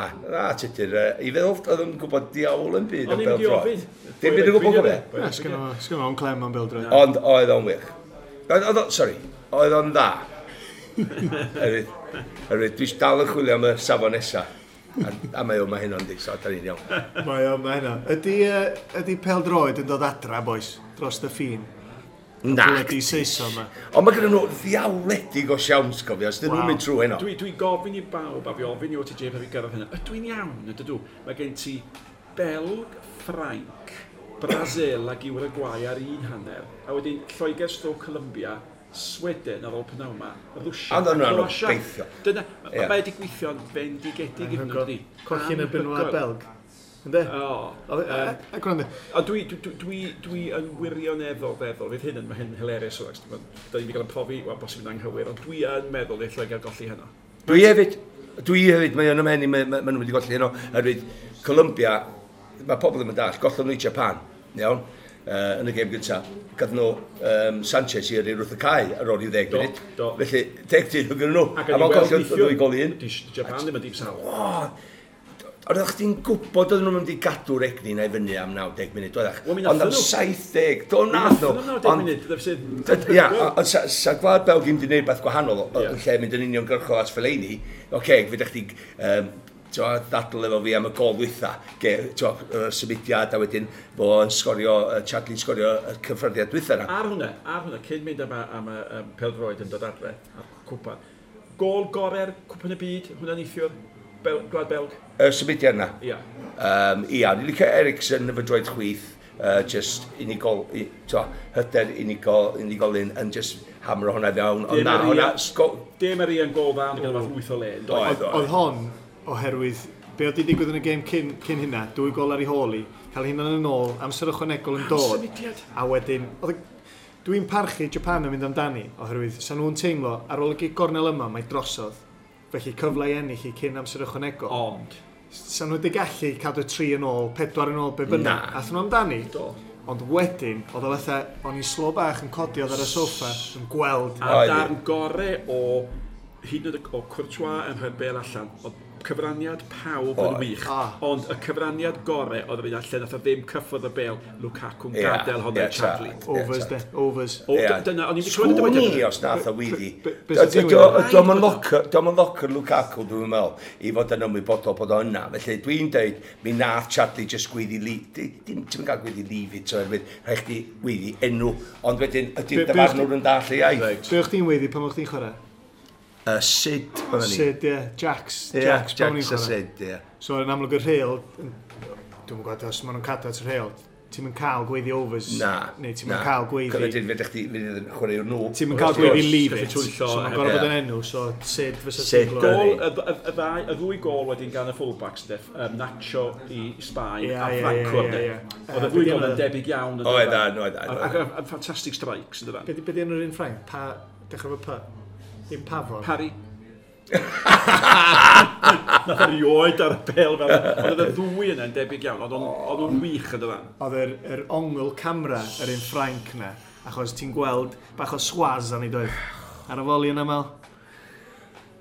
Tudur, i feddwl oedd yn gwybod diawl yn byd am bêl-droed. Dim byd yn gwybod gofio. Na, sgynno fo'n clem am bêl-droed. Ond oedd o'n wych. Sorry, oedd o'n dda. Erwydd, dwi dal yn chwilio am y safon nesa. A mae o ma hynna'n di, so da ni'n iawn. Mae o ma hynna. Ydy pêl-droed yn dod adra, boys, dros y ffin? Na. Bloody Saeson yma. Ond mae gen nhw ddiawledig o siawns, cofio, os dyn nhw'n mynd trwy heno. Dwi'n gofyn i bawb, a fi ofyn i OTJ pan fi gyrraedd hynna, ydw i'n iawn, ydw? Mae gen ti Belg, Ffrainc, Brasil ac Uruguay ar un hanner, a wedyn Lloegr stroke Columbia, Sweden ar ôl pnawn yma, Rwsia a Croatia. Dyna, mae wedi gweithio'n bendigedig iddyn nhw, dydi? Colli'n erbyn Wlad Belg. Ynddi? O. A gwrando. A dwi yn wirioneddol feddwl, fydd hyn yn, mae hyn hilarious o, da ni wedi cael yn profi, wel, bosib yn anghywir, ond dwi yn meddwl i'r Lloegr golli heno. Dwi hefyd, mae o'n ymhen i, mae nhw'n wedi golli heno, oherwydd Columbia, mae pobl ddim yn dall, gollon nhw i Japan, iawn, yn y gêm gyntaf. Gath nhw Sanchez i yrru wrth y cae ar ôl i 10 munud. Felly, 10 dyn nhw gyda nhw. A mae'n colli 2 gol i 1. Japan ddim yn dim sal. Ond oeddech chdi'n gwybod oedden nhw'n mynd i gadw'r egni na i fyny am 90 munud, oeddech? Ond am 70, do nath nhw. Ond 90 munud, Ia, ond sa Gwlad Belg ddim wedi gwneud beth gwahanol yn lle mynd yn uniongyrchol at Fellaini. Oce, fydech chdi ddadl efo fi am y gol dwytha, symudiad a wedyn fo yn sgorio, Chadli'n sgorio y cyffyrddiad dwytha na. Ar hwnna, cyn mynd am y pêl-droed yn dod adre, a'r cwpan, gol gorau'r cwpan y byd, hwnna'n neithiwr? Gwlad Belg? Y symudiad yna? Ia. Ia, ni'n licio Eriksen efo droed chwith, just unigol, hyder unigolyn yn just hamro hwnna fewn. Ond na, hwnna... De Maria yn gol dda, ond gyda fath lwyth o le. Oedd hon, oherwydd, be oedd di digwydd yn y gêm cyn hynna, 2 gol ar ei hôl i, cael hynna'n yn ôl, amser ychwanegol yn dod. Symudiad. A wedyn, dwi'n parchu Japan yn mynd amdani, oherwydd, sa nhw'n teimlo, ar ôl y gig gornel yma, mae drosodd. Felly cyfle i ennill i cyn amser ychwanegol. Ond? Sa nhw wedi gallu cadw 3 yn ôl, 4 yn ôl, be bynnag. Athyn nhw amdani. Do. Ond wedyn, oedd o fatha, o'n i'n slo bach yn codi oedd ar y soffa, yn gweld. A darn gore o, hyd yn oed o Courtois yn rhoi'r bêl allan, oedd cyfraniad pawb yn wych. Ond y cyfraniad gore oedd yr un allan, nath o ddim cyffwrdd y bêl, Lukaku'n gadael hwnna i Chadli. Overs, de, overs. Dyna, o'n i'n clywed y dywediad. Os nath o weiddi. Dio'm yn locker Lukaku, dwi'n meddwl, i fod yn ymwybodol bod o yna. Felly dwi'n dweud, mi nath Chadli just gweiddi, ti'n cael gweiddi leave it, oherwydd rhaid chdi weiddi enw, ond wedyn ydy'r dyfarnwr yn dall ei iaith. Be o'ch chdi'n weiddi pan o'ch chdi'n chwarae? Sid, oedden ni. Sid, ie. Jax. Jax a Sid, ie. So, yn amlwg y rheol, dwi'n gwybod os maen nhw'n cadw at y rheol, Ti'n mynd cael gweiddi overs. Na. Neu ti'n mynd cael gweiddi. Cyfyd fedrech chdi fydd yn chwaraewr nhw. Ti'n mynd cael gweiddi leave Gallu it. twyllo So mae'n hefyd. gorfod bod Ie. yn enw, so Sid fysa Sid, ti'n Gol, glywed. y ddwy gol wedyn gan y fullbacks, de, Nacho i Sbaen Ie, a ie, Franco. ie, de. ie, ie. Oedd y Be ddwy di gol yn enw? debyg iawn. yn Oedd, dydan? oedd, oedd. A ffantastig strikes, yn dydan? Be di enw'r un Ffrainc? Pa, dechrau fo P? Dim Pafon. Parry. Nath erioed ar y bêl fel. Ond oedd y ddwy yna'n debyg iawn. Oedd nhw'n wych yn dydan. Oedd yr ongl camera yr un Ffrainc na, achos ti'n gweld bach o swaz arni doedd. Ar y foli yna, Mel.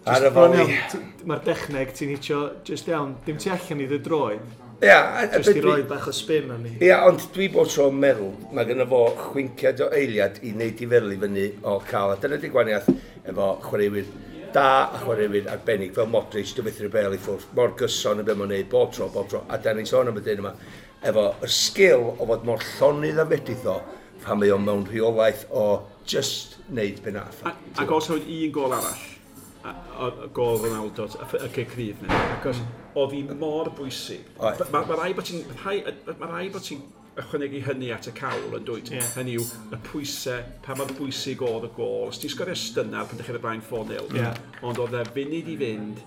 Ar y Just bron foli. iawn, mae'r dechneg ti'n hitio just iawn, dim tu allan i dy droed, Ia, just i roi bach o spin arni. Ia, ond dwi bod tro'n meddwl, mae gynno fo chwinciad o eiliad i wneud i feddwl i fyny o cael. A dyna di gwaniaeth efo chwaraewyr da a chwaraewyr arbennig fel Modric, dwi'n methu'r bel i ffwrdd, mor gyson yn be mae'n neud, bob tro, bob tro. A da ni'n sôn am y dyn yma, efo y sgil o fod mor llonydd a fedrith o, pan mae o mewn rheolaeth o just wneud be nath. Ac os oedd un gol arall, y gol Ronaldo, y cic rydd 'na, achos oedd hi mor bwysig. Oedd. Mae rai bod ti'n ma rai bod ti'n ychwanegu hynny at y cawl yn dwyt. Ie. Hynny yw, y pwysau, pa mor bwysig oedd y gol. Os ti'n sgorio stunner pan ddechrau blaen 4-0, Ie. ond oedd e funud i fynd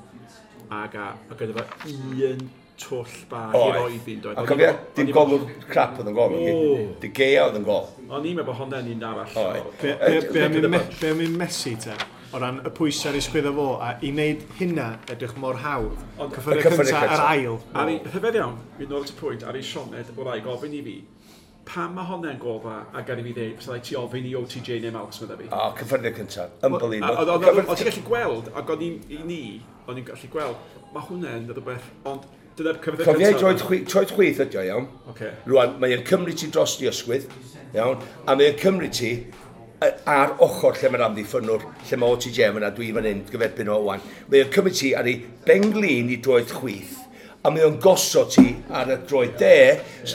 ac a gyda fo un twll bach i Oedd. roi iddi, doedd. A cofia, dim golwr crap oedd yn gol. O. De Gea oedd yn gol. O'n i'n meddwl bod honna'n un arall. Oedd. Be am un Messi te? O ran y pwysau ar ei sgwyddo fo, a i wneud hynna edrych mor hawdd. Ond- Cyffyrddiad Y cyffyrddiad cyntaf a'r cynta. ail. Ar ei, rhyfedd iawn, fi'n nôl at y pwynt, ar ei Sioned, o rai gofyn i fi, pam mae honna'n gol dda, a gad i fi ddeud, fysa rhaid ti ofyn i OTJ neu Malcs, medda fi. O, cyffyrddiad cyntaf. A Unbelievable. Oedd ti'n gallu gweld, ac o'n i'n i ni, o'n i'n gallu gweld, mae hwnna'n rhywbeth, ond dyna'r cyfrifiad Cofia i troed chwith ydi o, iawn. Ocê. Rwan, mae o'n cymryd ti dros di ysgwydd, iawn, a mae o'n cymryd ti ar ochr lle mae'r amddiffynnwr, lle mae OTJ fyna, dwi fan hyn, gyferbyn o wan. Mae o'n cymryd ti ar ei benglin i droed chwith, a mae o'n gosod ti ar y droed de,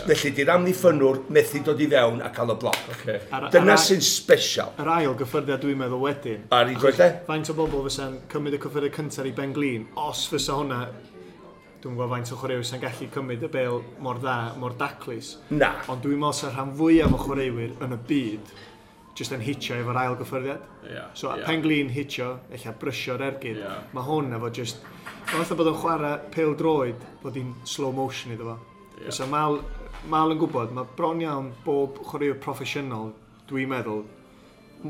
felly di'r amddiffynnwr methu dod i fewn a cael y bloc. Ocê. Dyna sy'n special. Yr ail gyffyrddiad dwi'n meddwl wedyn. Ar ei droed de? Faint o bobl fysa'n cymryd y cyffyrddiad cyntaf i Ben Glin, os fysa hwnna, dwi'n gwybod faint o chwaraewyr sy'n gallu cymryd y bel mor dda, mor daclus. Na. Ond dwi'n meddwl sa'r rhan fwyaf o chwaraewyr yn y byd jyst yn hitio efo'r ail gyffyrddiad. Ie, So ie. Pen Glin hitio, ella brysio'r ergyd. Ie. Mae hwn efo just... Mae fatha bod o'n chwarae pêl droed, bod hi'n slow motion iddo fo. Ie. So Mal yn gwybod, mae bron iawn bob chwaraewr proffesiynol, dwi'n meddwl,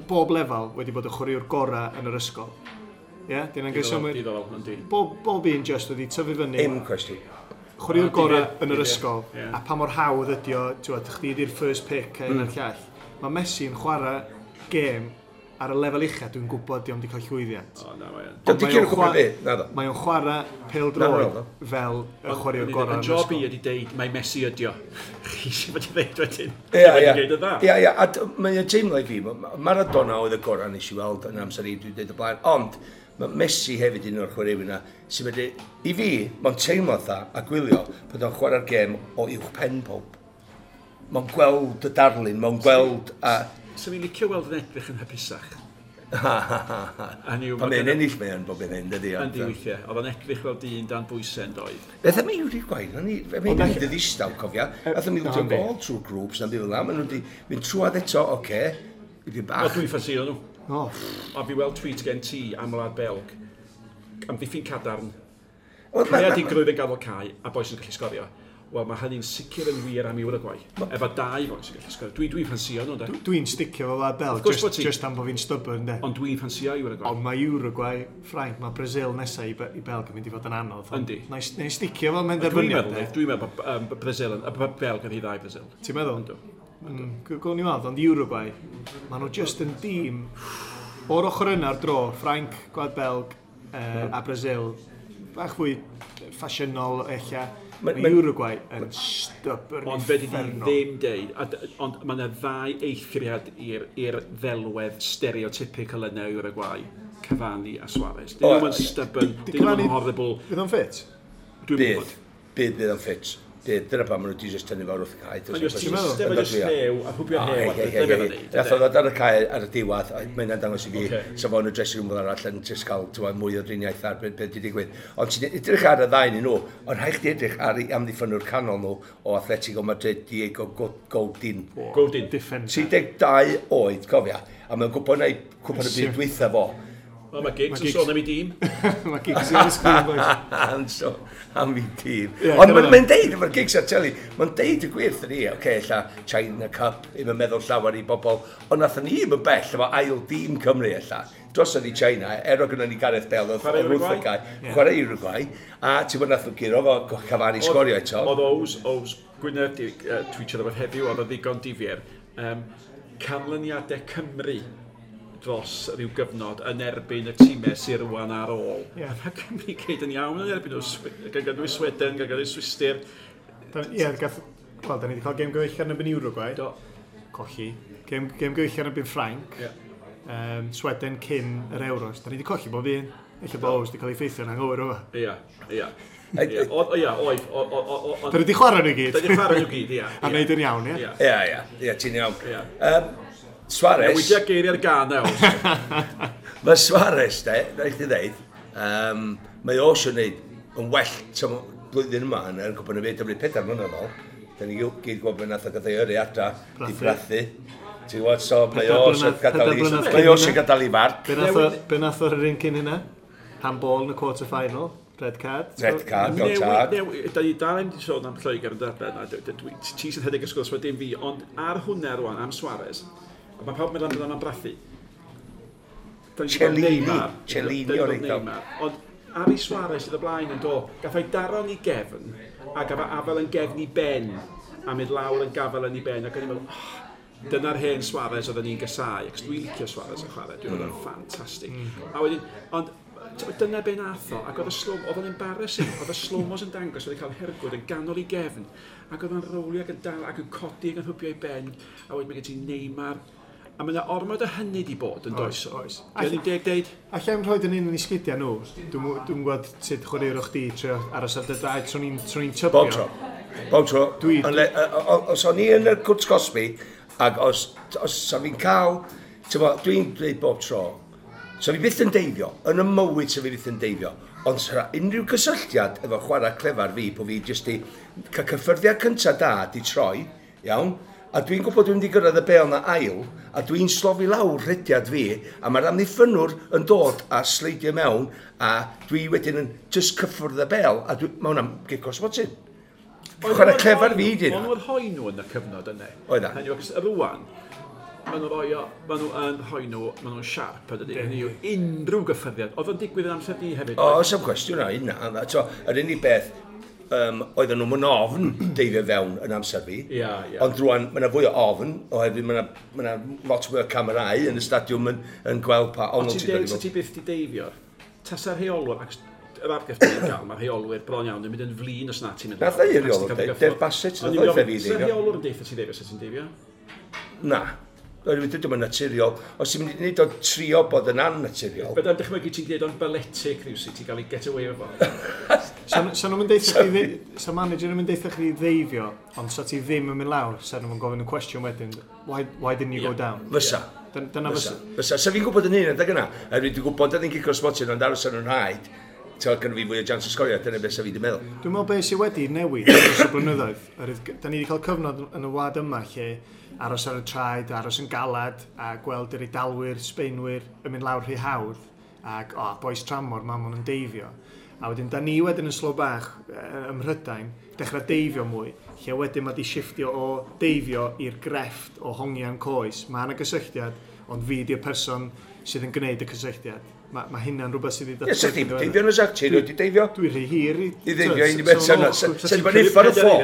bob lefel wedi bod y chwaraewr gorau yn yr ysgol. Ie, yeah, dyn nhw'n Diddorol, gwybod. diddorol, yndi. Bob un just wedi tyfu fyny, Dim cwestiwn. chwaraewr O, gorau difyr, yn yr difyr, ysgol, ie. a pa mor hawdd ydi o, ti'n gwbod, chdi di'r first pick a un a'r llall. Mae Messi yn chwarae gêm ar y lefel ucha, dwi'n gwybod di o'm di cael llwyddiant. O, na, mae o'n. Dydy Ond mae cyn o'n gwybod chwa- be, na ddo. Mae o'n chwarae pêl Na, na, droed na. fel y chwaraewr gorau Y yn yr job i ysgol. ydi deud, mae Messi ydi o. Chi sy'n fod i ddeud wedyn. Ia, ia. Wedi deud y dda. Ia, ia, a mae'n teimlo i fi, Maradona oedd y gorau nes i weld yn amser i, dwi'n dweud o blaen, ond mae Messi hefyd un o'r chwaraewyr yna, sy'n medru, i fi, mae'n teimlo dda a gwylio bod o'n chwarae'r gêm o uwch pen pob. Mae'n gweld y darlun, mae'n gweld a... Swn i'n licio weld yn edrych yn hapusach. Hynny yw, Pan ma' mae'n gynna- ennill mae'n bob yn hyn, dydy. Yndi weithiau. Oedd o'n edrych fel dyn dan bwysau yn doedd. Beth am Uruguay? Mae'n mynd i ddistaw, cofia. Nath o'n na, ildio yndi. gol trwy'r grŵps, na'n ddim fel Maen nhw wedi mynd trwad eto, oce. Okay. O, Bach. dwi'n ffansio nhw. O, A fi weld tweet gen ti am wlad Belg. Amddiffyn cadarn. Wel, Creadigrwydd yn gadael cae a boi sy'n gallu sgorio. Wel, mae hynny'n sicr yn wir am Uruguay. Efo dau foi sy'n gallu sgorio. Dwi'n ffansio nhw, de. Dwi'n sticio fo Wlad Belg, Of course just, bod ti. just am bod fi'n stubborn, de. Ond dwi'n ffansio Uruguay. Ond mae Uruguay, Ffrainc, mae Brazil nesaf i Belg yn mynd i fod yn anodd. Yndi. Na i sticio fo, mae'n Dwi'n derbyniad, meddwl, de. dwi'n meddwl bod Brazil yn, bod Belg yn rhy dda i Brazil. Ti'n meddwl? Yndw. Gawn ni weld, ond Uruguay, maen nhw just yn dîm o'r ochr yna ar dro, Ffrainc, Gwlad Belg a Brazil, bach fwy ffasiynol ella. Mae Uruguay yn stubborn Ond fe di uffernol. ddim deud, ond mae yna ddau eithriad i'r ddelwedd stereotypical yna o Uruguay, Cavani a Suarez. Dyn O, nhw'n ie. stubborn, Di dyn nhw'n Cavani- horrible. Fydd o'n ffit? Dwi'n Bydd. gwybod. Bydd o'n ffit. Dyna pam maen nhw wedi just tynnu fawr wrth y cae. Mae'n just ti'n just llew a hwbio hew. Nath o ddod ar y cae ar y diwedd, a mae'n dangos i fi, sa fo yn y dressing room fel arall yn just cael mwy o driniaeth ar beth wedi digwydd. Ond ti'n edrych ar y ddau nhw, ond rhaid chdi edrych ar ei amddiffynwr canol nhw o Atletico Madrid, Diego Godin. Godin. 32 oed, cofia. A mae'n gwybod na i cwpan y byd dwytha fo. Wel, mae Giggs yn sôn am ei dîm. Mae Giggs yn sgrin, boys. Am so, am ei dîm. Ond mae'n deud, mae'r Giggs ar teli, mae'n deud y gwir ni, oce, okay, ella China Cup, ddim yn meddwl llawer i bobl, ond nathon ni ddim yn bell efo ail dîm Cymru ella. Drosodd i China, er o gynnon ni Gareth Bale, oedd wrth y cae, chwarae Uruguay, a ti'n bod nath nhw guro fo Cavani sgorio eto. Oedd Ows Gwynedd di tweetio rhywbeth heddiw, oedd o ddigon difyr. Canlyniadau Cymru dros rhyw gyfnod yn erbyn y tîmau sydd rwan ar ôl. Yeah. Mae Cymru gyd yn iawn yn erbyn nhw, gan gynnwys Sweden, gan gynnwys Swistir. Ie, wel, da ni wedi cael gêm gyfeillgar yn erbyn Uruguay. Do. Colli. Gêm gyfeillgar yn erbyn Ffrainc. Yeah. Sweden cyn yr Euros. Da ni wedi colli bob un. Ella bod Ows wedi cael ei ffeithio yn anghywir o. Ia, ia. Ia, oedd. Da ni wedi chwarae nhw gyd. Da ni wedi chwarae nhw gyd, ia. A wneud yn iawn, ia? Ia, ia, ti'n iawn. Suarez... Newidia geiriau'r gân nawr. Mae Suarez, de, rhaid i ddeud, mae o eisiau gwneud yn well blwyddyn yma yn Cwpan y Byd, 4 mlynedd ôl. Da ni gyd gwybod beth nath o gael ei yrru adra, di brathu. Ti'n gwybod, so mae o eisiau gadael i farc. Be nath o'r un cyn hynna? Handball yn y quarter final. Red card. Red card, go tad. Da ni dal ddim wedi sôn am Lloegr yn darllen, ti sy'n rhedeg y sgwrs, dim fi, ond ar hwnna rwan, am Suarez, a mae pawb yn meddwl am brathu. Cellini o'r eiddo. Ond Ari Suarez sydd y blaen yn do, gath o'i daron i gefn, a gath o'i afel yn gefn i ben, a mynd lawr yn gafel yn ei ben, ac o'n i'n meddwl, oh, dyna'r hen Suarez oedden ni'n gysau, ac dwi'n licio Suarez yn chwarae, dwi'n meddwl o'n ffantastig. A wedyn, ond dyna be nath o, ac oedd y slow, oedd o'n embarrassing, oedd y slow-mos yn dangos, oedd o'n cael hergwd yn ganol i gefn, ac oedd o'n rowlio ac yn dal, ac yn codi ac yn hwbio ei ben, a wedyn mae gen ti Neymar, a mae yna ormod o hynny di bod yn does. Oes. Dwi'n ddim deg deud? Alla i'm rhoi yn un yn ei sgidiau nhw. Dwi'n gwybod sut chwaraewr chdi trio aros ar dy draed, swn i'n tybio. Bob tro. Bob tro. Os o'n i yn y cwrt cosbi, ac os sa fi'n cael, dwi'n dweud bob tro, sa fi byth yn deifio, yn y mywyd sa fi byth yn deifio, ond sa unrhyw gysylltiad efo chwarae clefar fi, bo fi jyst i cael cyffyrddiad cyntaf da di troi, iawn, a dwi'n gwybod dwi'n mynd i gyrraedd y bêl na ail, a dwi'n slofi lawr rhediad fi, a mae'r amddiffynnwr yn dod a sleidio mewn, a dwi wedyn yn just cyffwrdd y bêl, a mae hwnna'n gic o smotyn. Chwarae clefar fi di. Ond oedd rhoi nhw yn y cyfnod yna. Oedd na. Hynny yw, rwan, maen nhw'n rhoi nhw, maen nhw'n siarp, ydy. Hynny yw, unrhyw gyffyrddiad. Oedd o'n digwydd yn amser di hefyd? O, oes am cwestiwn na, hynna. Yr unig beth, oedden nhw'n ofn deifio fewn yn amser fi. Yeah, yeah. Ond rwan, mae yna fwy o ofn, oherwydd mae yna lot fwy o camerau yn y stadiwm yn gweld pa ongl ti'n dod i fod. Ti byth di deifio, tasa'r rheolwr, ac yr argraff ti'n gael, mae'r rheolwyr bron iawn yn mynd yn flin os na ti'n mynd. Nath ei rheolwr, Dave Bassett, nath o'i fe fi deifio. Tasa'r rheolwr yn deitha ti deifio, sa ti'n deifio? Na. Oherwydd dydw i'n naturiol. Os ti'n mynd i wneud o trio bod yn annaturiol. Byddai'n dychmygu ti'n gwneud o'n balletic rhywsut, ti'n cael ei get away efo. Sa nhw'n mynd deitha chdi, sa manager yn mynd deitha chdi ddeifio, ond sa ti ddim yn mynd lawr, sa nhw'n gofyn y cwestiwn wedyn, why didn't you go down? Fysa. Dyna fysa. Fysa. Sa fi'n gwybod yn un adeg yna, oherwydd dwi'n gwybod oedd hi'n cico smotyn, ond aros ar nhw'n rhaid, ti'n gynnu fi fwy o jans o sgorio, dyna beth sa fi wedi meddwl. Dwi'n meddwl beth sydd wedi newid dros y blynyddoedd. Da ni wedi cael cyfnod yn y wlad yma lle aros ar y traed, aros yn galad, a gweld yr Eidalwyr, Sbeinwyr yn mynd lawr rhy hawdd, ac o, bois tramor, ma' nhw'n deifio. A wedyn, da ni wedyn yn slo bach ym Mhrydain, dechrau deifio mwy, lle wedyn mae di shifftio o deifio i'r grefft o hongian coes. Mae yna gysylltiad, ond fi di'r person sydd yn gwneud y cysylltiad. Mae hynna'n rhywbeth sydd wedi datblygu. Ie, sa chdi deifio yn y sac, ti'n wedi deifio? Dwi'n rhy hir i... I ddeifio un i beth sa'n Sa'n bod ni'n ffordd y ffo.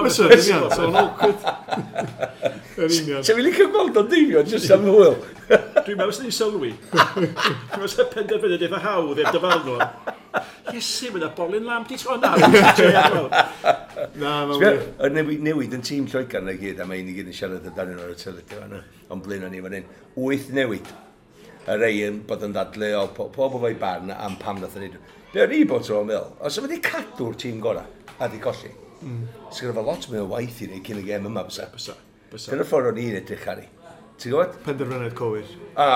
Fysa, yn union, so'n awkward. Yn union. Sa'n fi'n licio gweld o'n deifio, jyst am hwyl. Dwi'n meddwl sy'n ni'n sylwi. Dwi'n meddwl sy'n penderfynu eitha hawdd i'r dyfarnwr. Iesu, mae yna bolyn lamp di tro na. Na, mae'n wir. Y newid yn tîm Lloegr na gyd, a mae un i gyd yn siarad amdanyn nhw ar y teledu fan'na, ond blaen ni fan hyn. 8 newid. Y rei yn bod yn ddadleuol, pob o'i barn am pam nath o'n neud. Be o'n i bod tro'n meddwl, os o'n wedi cadw'r tîm gorau a di colli. Sgynna fo lot mwy o waith i wneud cyn y gêm yma, bysa. Bysa. Bysa. Dyna'r ffordd o'n i'n edrych ar ei. Ti'n gwybod? Penderfyniad cywir. A,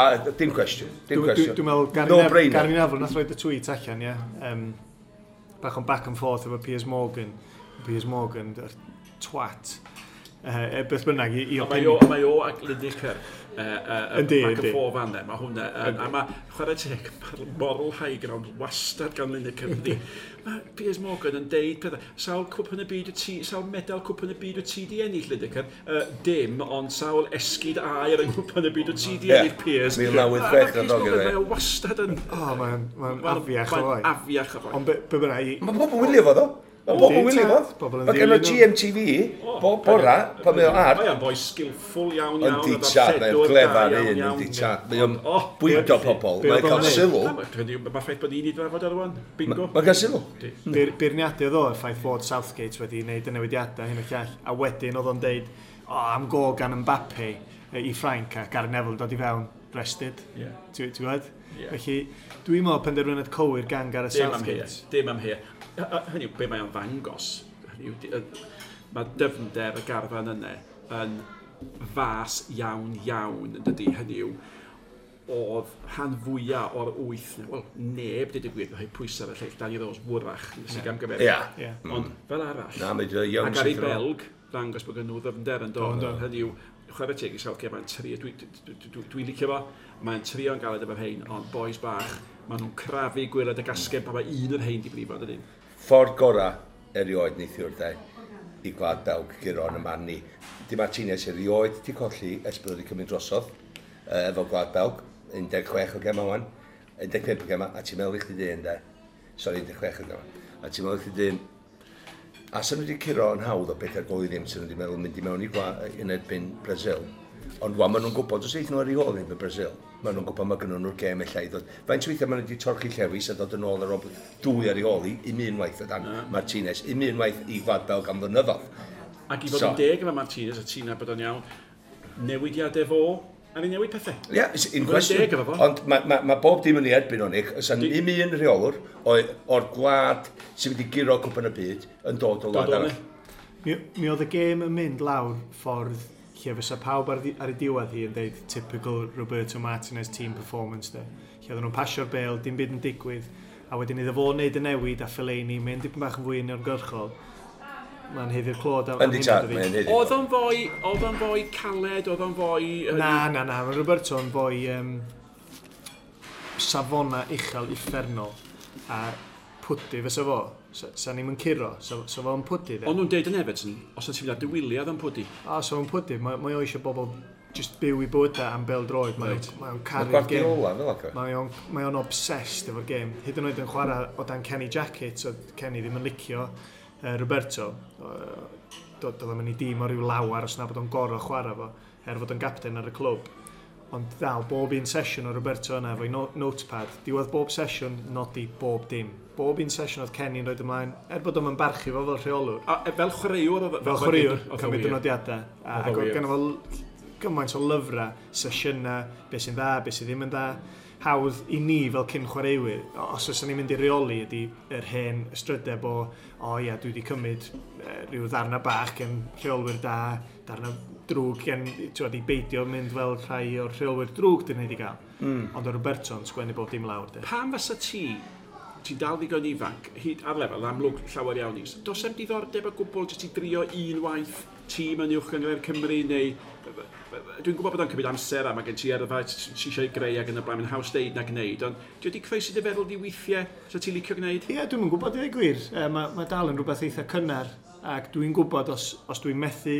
dim cwestiwn. Dim cwestiwn. Dwi'n meddwl, Gary, No Nef brainer. Gary Neville nath roed y tweet allan, ie. Bach o'n back and forth efo Piers Morgan. Piers Morgan, yr twat. Beth bynnag, i Ond Mae o, opinion. mae o ac Lineker Yndi, back and yndi. forth fan Mae hwnna, a mae chwarae teg, mae'r moral high ground wastad gan Lineker. Yndi. Mae Piers Morgan yn deud pethau, sawl cwpan y byd y ti, sawl medal cwpan y byd y ti di ennill Lineker? Dim, ond sawl esgid aur yng nghwpan y byd y ti di Ie. ennill Piers. 1986 A ma' Piers na ddog Morgan, iddo, ie. Mae o wastad yn... O, mae'n mae afiach o Mae'n foi. afiach o foi. Ond be bynnag, Mae pobl yn wylio fo, ddo. Mae pobl yn wylio fo. Pobl yn Mae gen o ddilyn nhw. GMTV, bob bora, pan mae o ar. Mae o'n boi skillful iawn iawn. Yndi a tad, mae'n darlledwr da glefar iawn, un, iawn. yndi tad. Mae o'n O, bwydo pobl, be mae'n oedd cael o'n neud? sylw. Na, Mae'r ffaith bod ni'n ei drafod ar rwan. Bingo. Mae'n cael sylw. Beirniadu oedd o y ffaith fod Southgate wedi wneud y newidiadau hyn o llall. A wedyn oedd o'n deud, o, am go gan Mbappe i Ffrainc a Gary Neville yn dod i fewn, rested. Ie. Ti'n gwybod? Ie. Felly, dwi'n meddwl penderfyniad cywir gan Gareth Dim am hea. Southgate. Dim am hea. Hynny yw, be mae o'n ddangos. Hynny yw, mae dyfnder y garfan yna yn fas iawn iawn yn dydy. Hynny yw, oedd rhan fwyaf o'r wyth, wel, neb, dweud y gwir, rhoi pwysau ar y lleill, Danny Rose wrach, nes i gamgymeriad. Ie. Ie. Ond fel arall, Na, mae wedi iawn Ac ar ei syth yn ôl. Belg, ddangos bod gen nhw ddyfnder yn dod. Do, ynddo. Hynny yw, chwarae teg i Southgate, mae'n trio, dwi'n dwi, dwi, dwi licio fo, mae'n trio'n galed efo rhein, ond boys bach, maen nhw'n crafu gwaelod y gasgen pan mae un o'r rhein di brifo, dydyn. Ffordd gora erioed neithiwr, de, i Gwlad Belg guro yn y man ni. Di Martinez erioed di colli ers bod wedi cymryd drosodd efo Gwlad Belg, 16 o gema wan, 15 o gema, a ti'n meddwl i chdi dyn, de. Sori, 16 o gema. A ti'n meddwl i chdi dyn, a sy'n nhw wedi curo yn hawdd o 4 gol i ddim, sy'n nhw wedi meddwl mynd i mewn i yn erbyn Brazil. Ond wan, maen nhw'n gwybod, os eithon nhw ar ei ôl erbyn Brazil, maen nhw'n gwybod mae gynnon nhw'r gêm ella i ddod. Faint weithiau maen nhw wedi torchi llewis a dod yn ôl ar ôl dwy ar ei ôl i, un unwaith o dan Martinez, un unwaith i Gwlad Belg am flynyddoedd. Ac i fod So. yn deg efo Martinez, a ti'n nabod o'n iawn, newidiadau fo, a ni newid pethau. Ie, yeah, it's in Mae'n question. deg efo fo. Ond mae ma, ma bob dim yn ei erbyn o'n ich. Oes un un rheolwr o'r gwlad sy'n mynd i guro cwpan y byd yn dod o Dod wlad o arall. ne. Mi oedd y gêm yn mynd lawr ffordd lle fysa pawb ar ei diwedd hi yn deud typical Roberto Martinez team performance de. Lle oedden nhw'n pasio'r bêl, dim byd yn digwydd, a wedyn iddo fo wneud y newid a Fellaini mynd dipyn bach yn fwy uniongyrchol. Mae'n haeddu'r clod am Yndi hynna, tad, dydi? mae'n haeddu. Oedd o'n foi caled, oedd o'n foi... Na, na, na, mae Roberto yn foi safona uchel uffernol a pwdu fysa fo. Sa ni'm yn curo, sa fo'n pwdu de. Ond nhw'n deud yn Everton, os ti'n mynd ar dy wyliau yn pwdu. A so fo'n pwdu, mae o eisiau bobl just byw i bywydau am bêl droed. Mae Reit. o'n Mae caru'r gêm. Guardiola fel ac. Mae o'n obsessed efo'r gêm. Hyd yn oed yn chwarae o dan Kenny Jackett, so Kenny ddim yn licio Roberto. Doedd o'm yn ei dîm o ryw lawar os na bod o'n gorau chwarae fo, er fod o'n gapten ar y clwb. Ond dal, bob un sesiwn o Roberto yna efo'i notepad, diwedd bob sesiwn, nodi bob dim. Bob un sesiwn oedd Kenny'n rhoi ymlaen, er bod o'n barchu fo fel rheolwr. A, fel chwaraewr oedd... Fel chwaraewr, oedd o cymryd y wir. nodiadau. A, Oedd o ac oedd wir. gynno fo gymaint o lyfrau, sesiynau, beth sy'n dda, beth sydd ddim yn dda. Hawdd i ni fel cyn chwaraewyr, os oes ni'n mynd i reoli ydy yr hen ystrydeb o, o ia, dwi wedi cymryd rhyw ddarna bach gen rheolwyr da, darna drwg gen, ti'n i beidio mynd fel rhai o'r rheolwyr drwg dyn ni wedi gael. Ond o Roberto'n sgwennu bob dim lawr, de. Pam fysa ti, ti'n dal ddigon ifanc, hyd ar lefel amlwg llawer iawn is, does em diddordeb o gwbl jyst i drio un waith tîm yn uwch gynghrair Cymru neu... Dwi'n gwybod bod o'n cymryd amser a mae gen ti yrfa ti eisiau greu ac yn y blaen, mae'n haws deud na gwneud, ond di wedi croesi dy feddwl di weithiau, sa ti'n licio gwneud? Ie, dwi'm yn gwybod i ddweud gwir. Mae dal yn rhywbeth eitha cynnar ac dwi'n gwybod os dwi'n methu,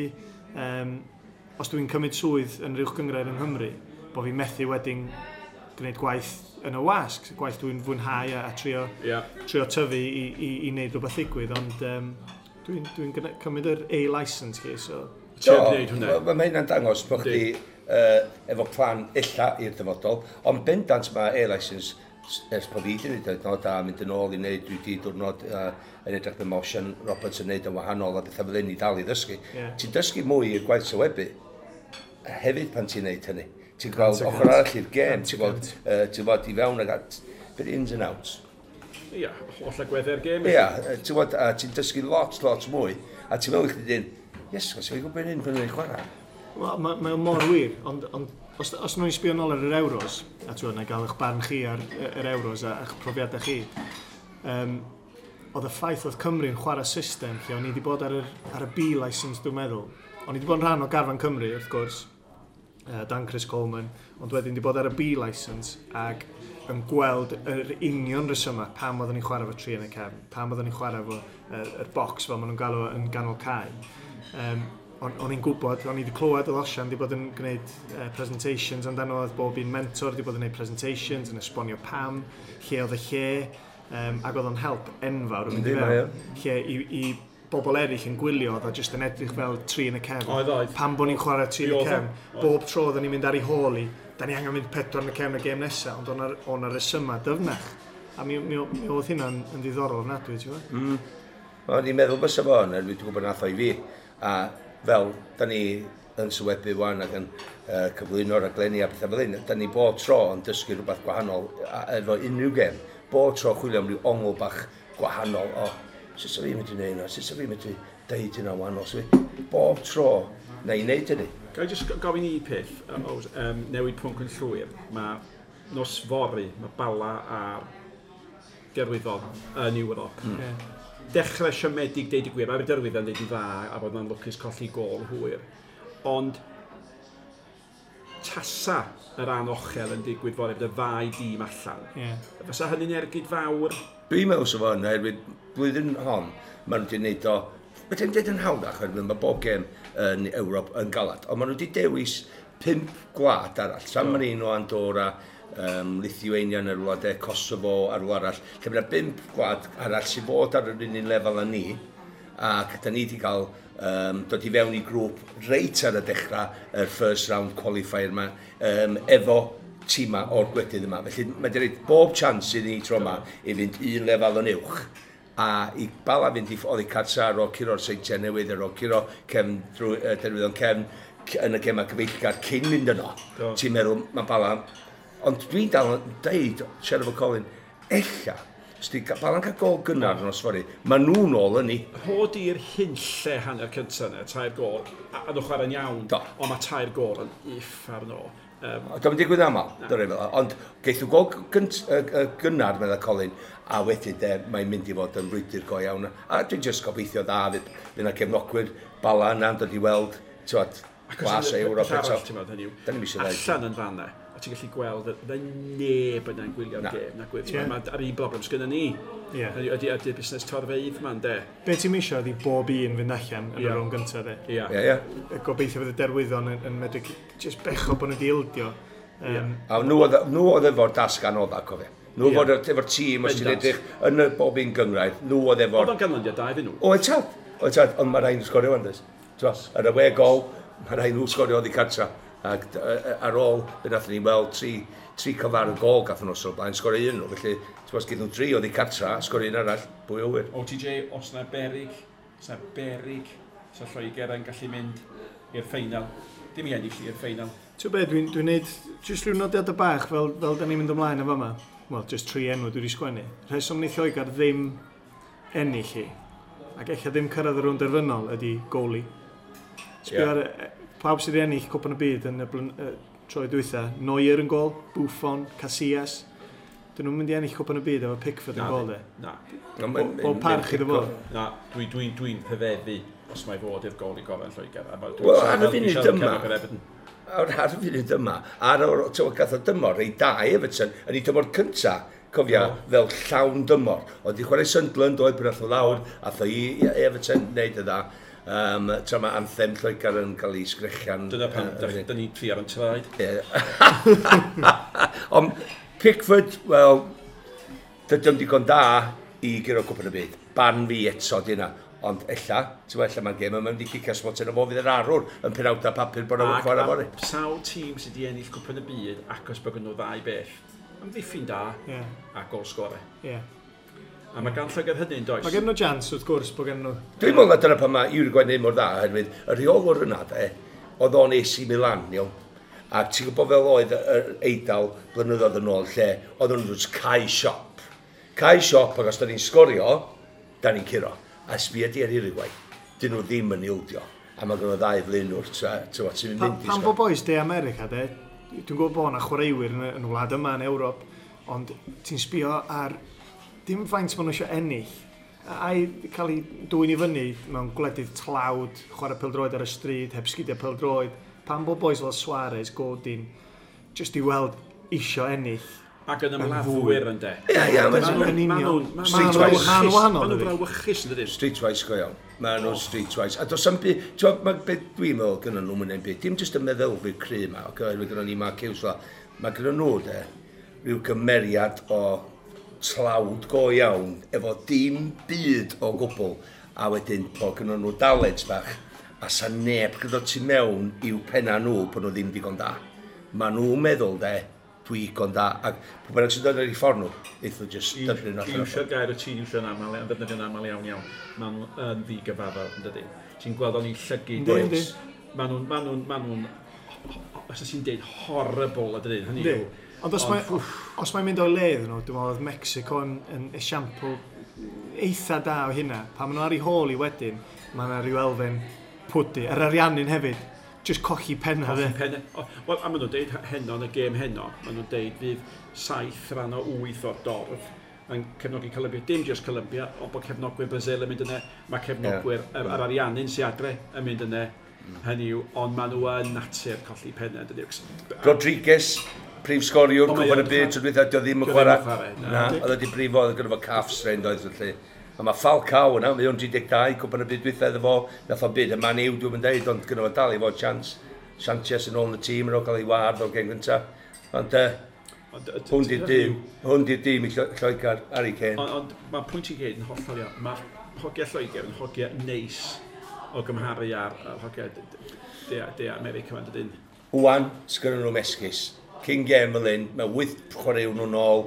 os dwi'n cymryd swydd yn yr uwch gynghrair yng Nghymru, bod fi'n methu wedyn gwneud gwaith yn y wasg, gwaith dwi'n fwynhau a trio, trio tyfu i wneud rhywbeth ddigwydd, ond dwi'n cymryd yr A-licence chi, so... Trio gwneud hwnna. Mae hynna'n dangos bod chdi efo plan illa i'r dyfodol, ond bendant mae A-licence ers bod fi wedi gwneud o, a mynd yn ôl i wneud, dwi wedi diwrnod yn edrych be mae Osian Roberts yn wneud yn wahanol a bethau fel hyn i dal i ddysgu. Ti'n dysgu mwy i'r gwaith sylwebu hefyd pan ti'n wneud hynny. Ti'n gweld Cant y ochr cant. arall i'r gêm, Cant y ti'n gweld, cant. ti'n gweld i fewn ag at, bit ins and outs. Ia, holl agweddau'r gêm. Ia, ti'n gwybod, a ti'n dysgu lot, lot mwy, a ti'n meddwl i chdi dyn, yes, os yw'n gwybod hyn pan nhw'n chwarae. Wel, mae o mor wir, ond os nhw'n sbio nôl ar yr Euros, a ti'n na gael eich barn chi ar yr Euros a eich profiadau chi, oedd y ffaith oedd Cymru'n chwarae system lle o'n i wedi bod ar y B licence, dwi'n meddwl. O'n i wedi bod yn rhan o garfan Cymru, wrth gwrs, dan Chris Coleman, ond wedyn wedi bod ar y B licence ac yn gweld yr union rhesymau pam oeddwn ni'n chwarae fo tri yn y cefn, pam oeddwn ni'n chwarae fo yr box fel maen nhw'n galw yn ganol cae. O'n i'n gwybod, o'n i wedi clywed oedd Osian wedi bod yn gwneud presentations amdano, oedd bob un mentor wedi bod yn gwneud presentations, yn esbonio pam, lle oedd y lle, ac oedd o'n help enfawr yn mynd i Yndi, mae fewn. Lle i bobl eraill yn gwylio, oedd o jyst yn edrych fel tri yn y cefn. Oedd, oedd. Pam bod ni'n chwarae tri yn y Mi oedd o. cefn, Oedd. bob tro oedden ni'n mynd ar ei hôl i, da ni angen mynd pedwar yn y cefn y gêm nesaf, ond o'n rhesymau dyfnach. A mi oedd hynna'n yn ddiddorol ofnadwy, ti'n gwybod? O'n i'n meddwl bysa fo yn, dwi'n gwybod nath o i fi. A fel, da ni yn sylwebu wan ac yn cyflwyno raglenni a pethau fel hyn, da ni bob tro yn dysgu rhywbeth gwahanol efo unrhyw gêm. Bob tro chwilio am ryw ongl bach gwahanol o sut sa fi'n mynd i wneud hynna, sut sa fi'n mynd i deud hynna wahanol. So, bob tro na i wneud hynny. Ga i jyst gofyn i peth, newid pwnc yn llwyr. Mae nos fory, mae Bala a'r Derwyddon yn Ewrop. Dechrau siomedig, deud y gwir, mae'r Derwyddon deud yn dda a bod nhw'n lwcus colli gôl hwyr. Ond tasa yr anochel yn digwydd fory, bydd y ddau dîm allan. Fysa hynny'n ergyd fawr? Dwi'n meddwl sef o'n, oherwydd blwyddyn hon, maen nhw wedi gwneud o, Mae ddim dweud yn hawddach, oherwydd mae bob gêm yn Ewrop yn galad, ond maen nhw wedi dewis 5 gwlad arall. San Marino, Andorra, Lithuania yn yr wlad, Kosovo a'r wlad arall. Lle mae yna 5 gwlad arall sydd fod ar yr un lefel â ni, ac da ni wedi cael dod i fewn i grŵp reit ar y dechrau, yr first round qualifier yma, efo tîma o'r gwledydd yma. Felly mae wedi rhoi bob chance i ni tro yma i fynd un lefel yn uwch a i Bala fynd i oddi cartra ar ôl curo'r Seintiau Newydd, ar ôl curo cefn drwy Derwyddon cefn yn y gemau cyfeillgar cyn mynd yno. Do. Ti'n meddwl, mae Bala... Ond dwi'n dal yn deud, siarad efo Colin, ella, os di Bala'n cael gol gynnar yn nos fory, mae nhw'n ôl yn ni. Hod i'r hunlle hanner cyntaf yna, 3 gôl, a nhw chwarae'n iawn, Do. ond mae 3 gôl yn uffar no. Dwi'n digwydd aml, dyna fel. Ond geith nhw gol gynnar, medda Colin, a wedyn de, mae'n mynd i fod yn frwydr go iawn. A dwi'n just gobeithio dda, fydd yna gefnogwyr Bala yna'n dod i weld, ti'n glas o Ewrop eto. Ti'n meddwl, hynny yw, Da ni'm isio ddeud. allan yn fanna, a ti'n gallu gweld y neb yna'n gwylio'r Na. gêm, na gwyth. Ie. Mae ar un broblem sgynna ni. Ie. Hynny yw, Ydy busnes torfeydd ma'n de. Be ti'n misio ydi bob un fynd allan yn Ie. y rownd gyntaf, de. Ia. Ie, ie. Gobeithio fydd y Derwyddon yn medru just becho bod nhw wedi ildio. A nhw oedd efo'r dasg anodda, cofio. Nhw Ie. oedd efo'r tîm, os ti'n Bendant. edrych yn y bob un gyngrair, nhw oedd efo'r... Oedd o'n ganlyniad da iddyn nhw. Oedd tad, oedd tad, ond mae rhaid nhw sgorio wan, does. T'mo, ar y we gol, mae rhaid nhw sgorio oddi cartra. Ac ar ôl, fe nathon ni weld tri cyfar y gol gath nhw o'r blaen, sgorio un nhw. Felly, ti'n gwbod, gyda nhw tri oddi cartra, sgorio un arall, pwy o wir. OTJ, os na berig, os na berig, sa Lloegr yn gallu mynd i'r ffeinal. Dim i ennill i'r ffeinal. Ti'n be, dwi'n dwi neud jyst rhyw nodiadau bach fel da ni'n mynd ymlaen efo yma. Wel, jyst tri enw dwi wedi sgwennu. Rheswm wneith Lloegr ddim ennill hi, ac ella ddim cyrraedd y rownd derfynol ydy goalie. Sbio Ie. ar pawb sydd wedi ennill Cwpan y Byd yn y troi dwytha, Neuer yn gol, Buffon, Casillas. Dyn nhw'n mynd i ennill Cwpan y Byd efo Pickford yn Na, gol, de. Na, Bob parch iddo fo. na, dwi'n dwi, dwi rhyfeddu os mae fod i'r gol i gorau yn Lloegr. A Wel, ar y dwi'n funud siarad yma- cefnogwyr Everton. Ar y funud yma, ar o'r, ti'n gwbod, gath o dymor, rei da i Everton, yn ei dymor cynta, cofia, fel llawn dymor. Oedd i chwarae Sunderland, oedd pan ath o lawr, ath o i Everton, wneud y dda. Tra mae anthem Lloegr yn cael ei sgrechian. Dyna pam da ni'n tri ar yn traed. Ie. Ond Pickford, wel, dydy o'm digon da i guro Cwpan y Byd. Barn fi eto di yna. Ond ella, ti'n gwbod, ella mae'r gêm yma'n mynd i cicio smotyn o fo fydd yr arwr yn penawdau papur bod o'n chwarae fory. Sawl tîm sydd wedi ennill Cwpan y Byd acos bod gen nhw ddau beth. Amddiffyn da a gol sgore. Ie. A mae gan Lloegr hynny'n does? Mae gen nhw chance, wrth gwrs, bod gen nhw... Dwi'n meddwl na dyna pan mae Uruguay wneud mor dda, oherwydd y rheolwr yna, de, oedd o'n AC Milan, iawn. A ti'n gwybod fel oedd yr Eidal blynyddoedd yn ôl, lle oedd nhw'n just cau siop. Cau siop, ac os da ni'n sgorio, da ni'n curo. A sbia di ar Uruguay, dyn nhw ddim yn ildio. A mae gen nhw ddau flaenwr, ti'n mynd i Pan fo boys De America, de, dwi'n gwybod bod yna chwaraewyr yn y wlad yma yn Ewrop, ond ti'n sbio ar dim faint maen nhw eisiau ennill, a'i cael ei dwyn i fyny mewn gwledydd tlawd, chwarae pêl-droed ar y stryd, heb sgidiau pêl-droed, pan bo boys fel Suarez, Godin, just i weld isio ennill. Ac yn ymladdwyr yn de. Ie, ie, yn union. Streetwise. Maen nhw'n brawychus yn dydyn. Streetwise go iawn. Maen nhw'n streetwise. A does am byd, ti'n gwbod, beth dwi'n meddwl gynnon nhw mynd byd, dim jyst y meddylfryd cry yma, oherwydd gynnon ni Mark Hughes fel, mae gynnon nhw de, rhyw gymeriad o tlawd go iawn, efo dim byd o gwbl, a wedyn bod gynnon nhw dalent bach, a sa neb gyda tu mewn i'w penna nhw bod nhw ddim digon da. Maen nhw'n meddwl de, dwi digon da, ac pwy bynnag sy'n dod ar eu ffordd nhw, eith nhw jyst dyblu nhw allan. Iwsio'r gair y ti'n iwsio'n aml, yn ddefnyddio'n aml iawn iawn. Maen nhw yn ddigyfaddawd, yn dydyn. Ti'n gweld o'n i llygid. Maen nhw'n, os ti'n deud, horrible, yn dydyn. Hynny yw. Ond os mae'n mynd o'i le iddyn nhw, dwi'n meddwl oedd Mexico yn esiampl eitha da o hynna. Pan maen nhw ar ei hôl i wedyn, mae yna rhyw elfen pwdu. Yr Ariannin hefyd, just colli penna. Colli penna. Wel, a maen nhw'n deud heno yn y gêm heno, maen nhw'n deud fydd 7 rhan o 8 o'r dorf yn cefnogi Colombia. Dim just Colombia, ond bod cefnogwyr Brazil yn mynd yna, mae cefnogwyr yr Ariannin sy'n adre yn mynd yna. Hynny yw, ond maen nhw yn natur colli penna. Rodriguez, prif sgoriwr, Cwpan y Byd, tro dwytha, dio ddim yn chwarae. Na, oedd wedi brifo, oedd gyda fo calf strain, doedd felly. A mae Falcao yna, mae o'n 32, Cwpan y Byd dwytha iddo fo, nath o'n byd y Man U, dwi'n mynd deud, ond gyda fo dal i fod chance. Sanchez yn ôl yn y tîm, yn ôl cael ei wardd o'r gêm gynta. Ond hwn di'r dîm i Lloegr, Harry Kane. Ond mae pwynt i gyd yn hollol iawn. Mae hogiau Lloegr yn hogiau neis o gymharu ar hogiau De America yma, dydyn. Wan, sgynnon nhw'm esgus. Cyn gêm fel hyn, mae 8 chwaraewr nhw'n ôl,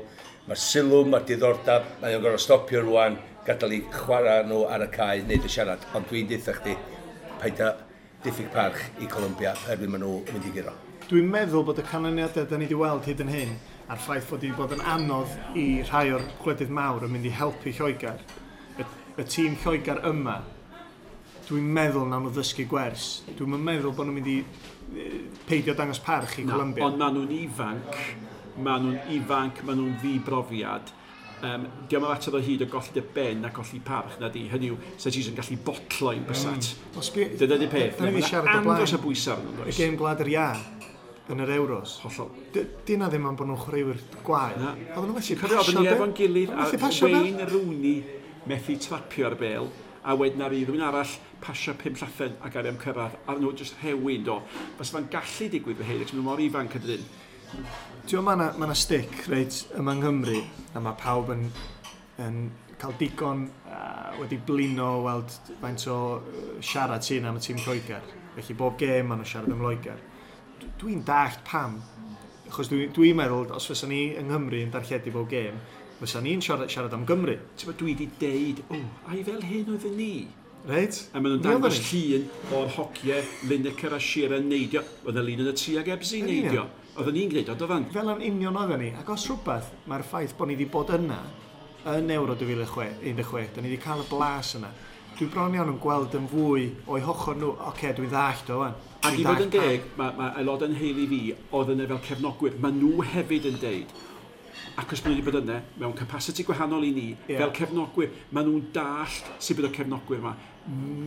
mae'r sylw, mae'r diddordeb, mae o'n gorfod stopio rwan, gadael i chwarae nhw ar y cae, neud y siarad. Ond dwi'n deutha chdi, paid â diffyg parch i Colombia, oherwydd maen nhw yn mynd i guro. Dwi'n meddwl bod y canlyniadau da ni wedi weld hyd yn hyn, a'r ffaith fod wedi bod yn anodd i rhai o'r gwledydd mawr yn mynd i helpu Lloegr, y tîm Lloegr yma, dwi'n meddwl nawn nhw ddysgu gwers. Dwi'n meddwl bod nhw'n mynd i peidio dangos parch i Colombia. Ond maen nhw'n ifanc, maen nhw'n ddibrofiad. Diolch yn fater o hyd o golli dy ben a colli parch na di. Hynny yw, sa ti yn gallu botlo i'n bysat. Dyna di peth. Da ni wedi siarad o blaen. Andros o bwysau arnyn nhw. Y gêm Gwlad yr Iâ yn yr Euros. Hollol. Dyna ddim am bod nhw'n chwaraewyr gwael. Oedden nhw'n methu pasio. Oedden ni efo'n gilydd a Wayne Rooney methu trapio'r bêl, a wedyn ar rhywun arall pasio 5 llathen ac ar am cyrraedd, a nhw jyst rhewi, do. Fysa fo'n gallu digwydd fy hyn, ac maen nhw mor ifanc ydyn. Ti'n gwybod, mae yna stick reit yma yng Nghymru, a mae pawb yn cael digon wedi blino o weld faint o siarad sy'n am y tîm Lloegr. Felly bob gêm maen nhw'n siarad am Loegr. Dwi'n dallt pam, achos dwi'n meddwl, os fysa ni yng Nghymru yn darlledu bob gêm, fysa ni'n siarad am Gymru. Ti'n bod, dwi wedi deud, ai fel hyn oedden ni. Reit. A maen nhw'n dangos llun o'r hogiau, Lineker a Shearer neidio. Oedd y lun yn y tri ag Ebsi neidio. Oedden ni'n gwneud o, doedden? Fel yn union oedden ni. Ac os rhywbeth, mae'r ffaith bod ni wedi bod yna yn Euro 2016, da ni wedi cael y blas yna. Dwi bron iawn yn gweld yn fwy o'i hochor nhw, oce, dwi'n ddallt o wan. Ac i fod yn deg, mae aelodau'n heili fi oedd yna fel cefnogwyr. Mae nhw hefyd yn deud, ac os maen nhw wedi bod yna, mewn capacity gwahanol i ni, fel cefnogwyr, maen nhw'n dallt sut bydd y cefnogwyr yma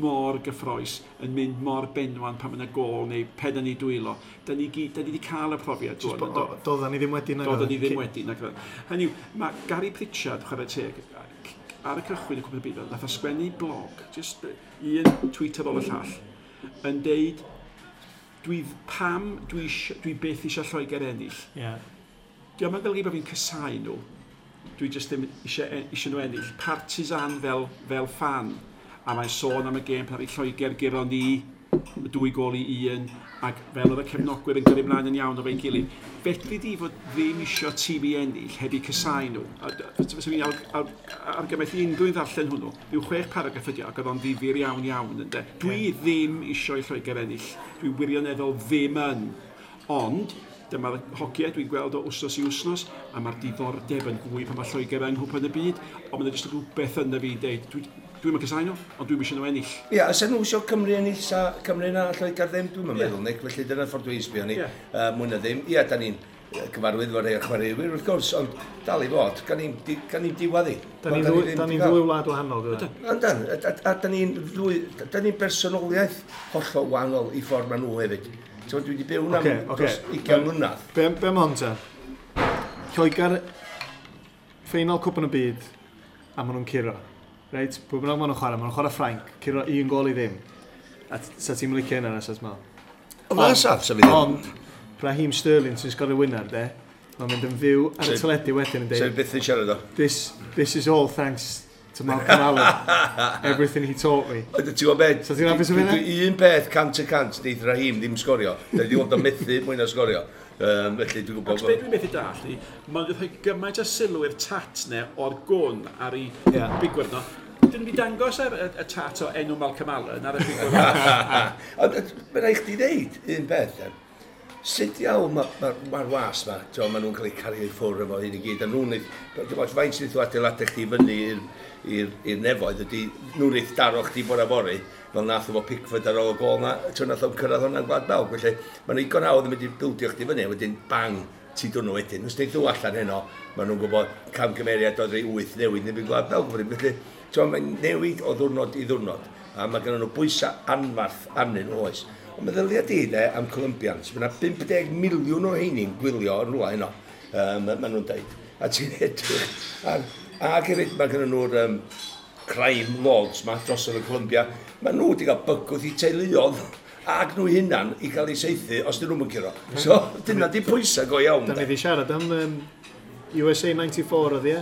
mor gyffroes, yn mynd mor benwan pan mae yna gôl neu pen yn ei dwylo. Da ni wedi cael y profiad. Doedden ni ddim wedi. Doedden ni ddim wedi. Hynny yw, mae Gary Pritchard, chwarae teg, ar y cychwyn y Cwpan y Byd, nath o sgwennu blog, just un tweet ar ôl y llall, yn deud, pam dwi byth eisiau Lloegr ennill. Diolch yn golygu bod fi'n casáu nhw. Dwi jyst ddim eisiau nhw ennill. Partisan fel fan. A mae'n sôn am y gêm pan Lloegr guro ni 2-1, ac fel oedd y cefnogwyr yn gyrru ymlaen yn iawn o fe'n gilydd. Fedri di fod ddim isio tîm i ennill heb i casáu nhw. Fysa fi'n argymell i unrhyw un ddarllen hwnnw. Rhyw 6 paragraff ydi o, ac oedd o'n ddifyr iawn iawn ynde. Dwi ddim isio i Lloegr ennill. Dwi wirioneddol ddim yn. Ond Dyma'r hogiau dwi'n gweld o wsnos i wsnos, a mae'r diddordeb yn fwy pan mae Lloegr yng Nghwpan y Byd, ond mae'n jyst rhywbeth yna fi'n deud, dwi'n mynd casáu nhw, ond dwi'n eisiau nhw ennill. Ia, os nhw eisiau Cymru ennill, sa Cymru na Lloegr ddim, dwi'n meddwl, Nick, felly dyna'r ffordd dwi'n sbio ni, mwy na ddim. Ia, da ni'n gyfarwydd efo rhai o'r chwaraewyr, wrth gwrs, ond dal i fod, gan ni'n diwadd i. Da ni'n ddwy wlad wahanol, dwi'n. Yndan, a da ni'n bersonoliaeth hollol wahanol i ffordd maen nhw hefyd. So, dwi wedi byw am dros 20 mlynedd. Be am hon ta? Lloegr, ffeinal Cwpan y Byd, a maen nhw'n curo. Reit, pwy bynnag maen nhw'n chwarae, maen nhw'n chwarae Ffrainc, curo 1-0. A sa ti'n licio hynna, na, sa ti'n meddwl? O, na, sa fi ddim. Ond, Raheem Sterling sy'n sgorio winner, de, mae'n mynd yn fyw ar y teledu wedyn yn dweud... Sef byth yn siarad o. This is all thanks to Malcolm Allen. Everything he taught me. Ti'n gwybod beth? So ti'n hapus o hynna? Un peth 100% neith Raheem ddim sgorio. Da ni wedi gweld o methu mwy na sgorio. Felly dwi'n gwybod... Ac beth dwi'n methu dallt i, mae'n rhoi gymaint o sylw i'r tat ne o'r gwn ar ei bigwrdd no. Dyn nhw wedi dangos ar y tat o enw Malcolm Allen ar y bigwrdd. Ond mae'n rhaid chdi ddeud un peth. Sut iawn mae'r was ma, maen nhw'n cael eu cario i ffwrdd efo hyn i gyd, a nhw'n neud, faint sydd nhw adeiladau chdi fyny i'r nefoedd ydy, nhw'n neud daro chdi bore fory, fel nath efo Pickford ar ôl y gol na, nath o'n cyrraedd hwnna'n Gwlad Belg, felly maen nhw'n digon hawdd yn mynd i bildio chdi fyny, a wedyn bang, ti dwn nhw wedyn. Os neud nhw allan heno, maen nhw'n gwybod camgymeriad oedd rei 8 newid neu Gwlad Belg, felly mae'n newid o ddwrnod i ddwrnod, a mae gen nhw bwysau anfarth arnyn nhw oes. Ond meddylia di de am Colombians, mae yna 50 miliwn o heini'n gwylio yn rhywle heno, maen nhw'n deud. A ti'n edrych, ac hefyd mae gen nhw'r crime lords ma dros yn y Colombia, maen nhw wedi cael bygwth i teuluodd ac nhw hunan i gael eu saethu os dyn nhw'n curo. So dyna di pwysau go iawn. Da ni wedi siarad am USA 94 oedd ie?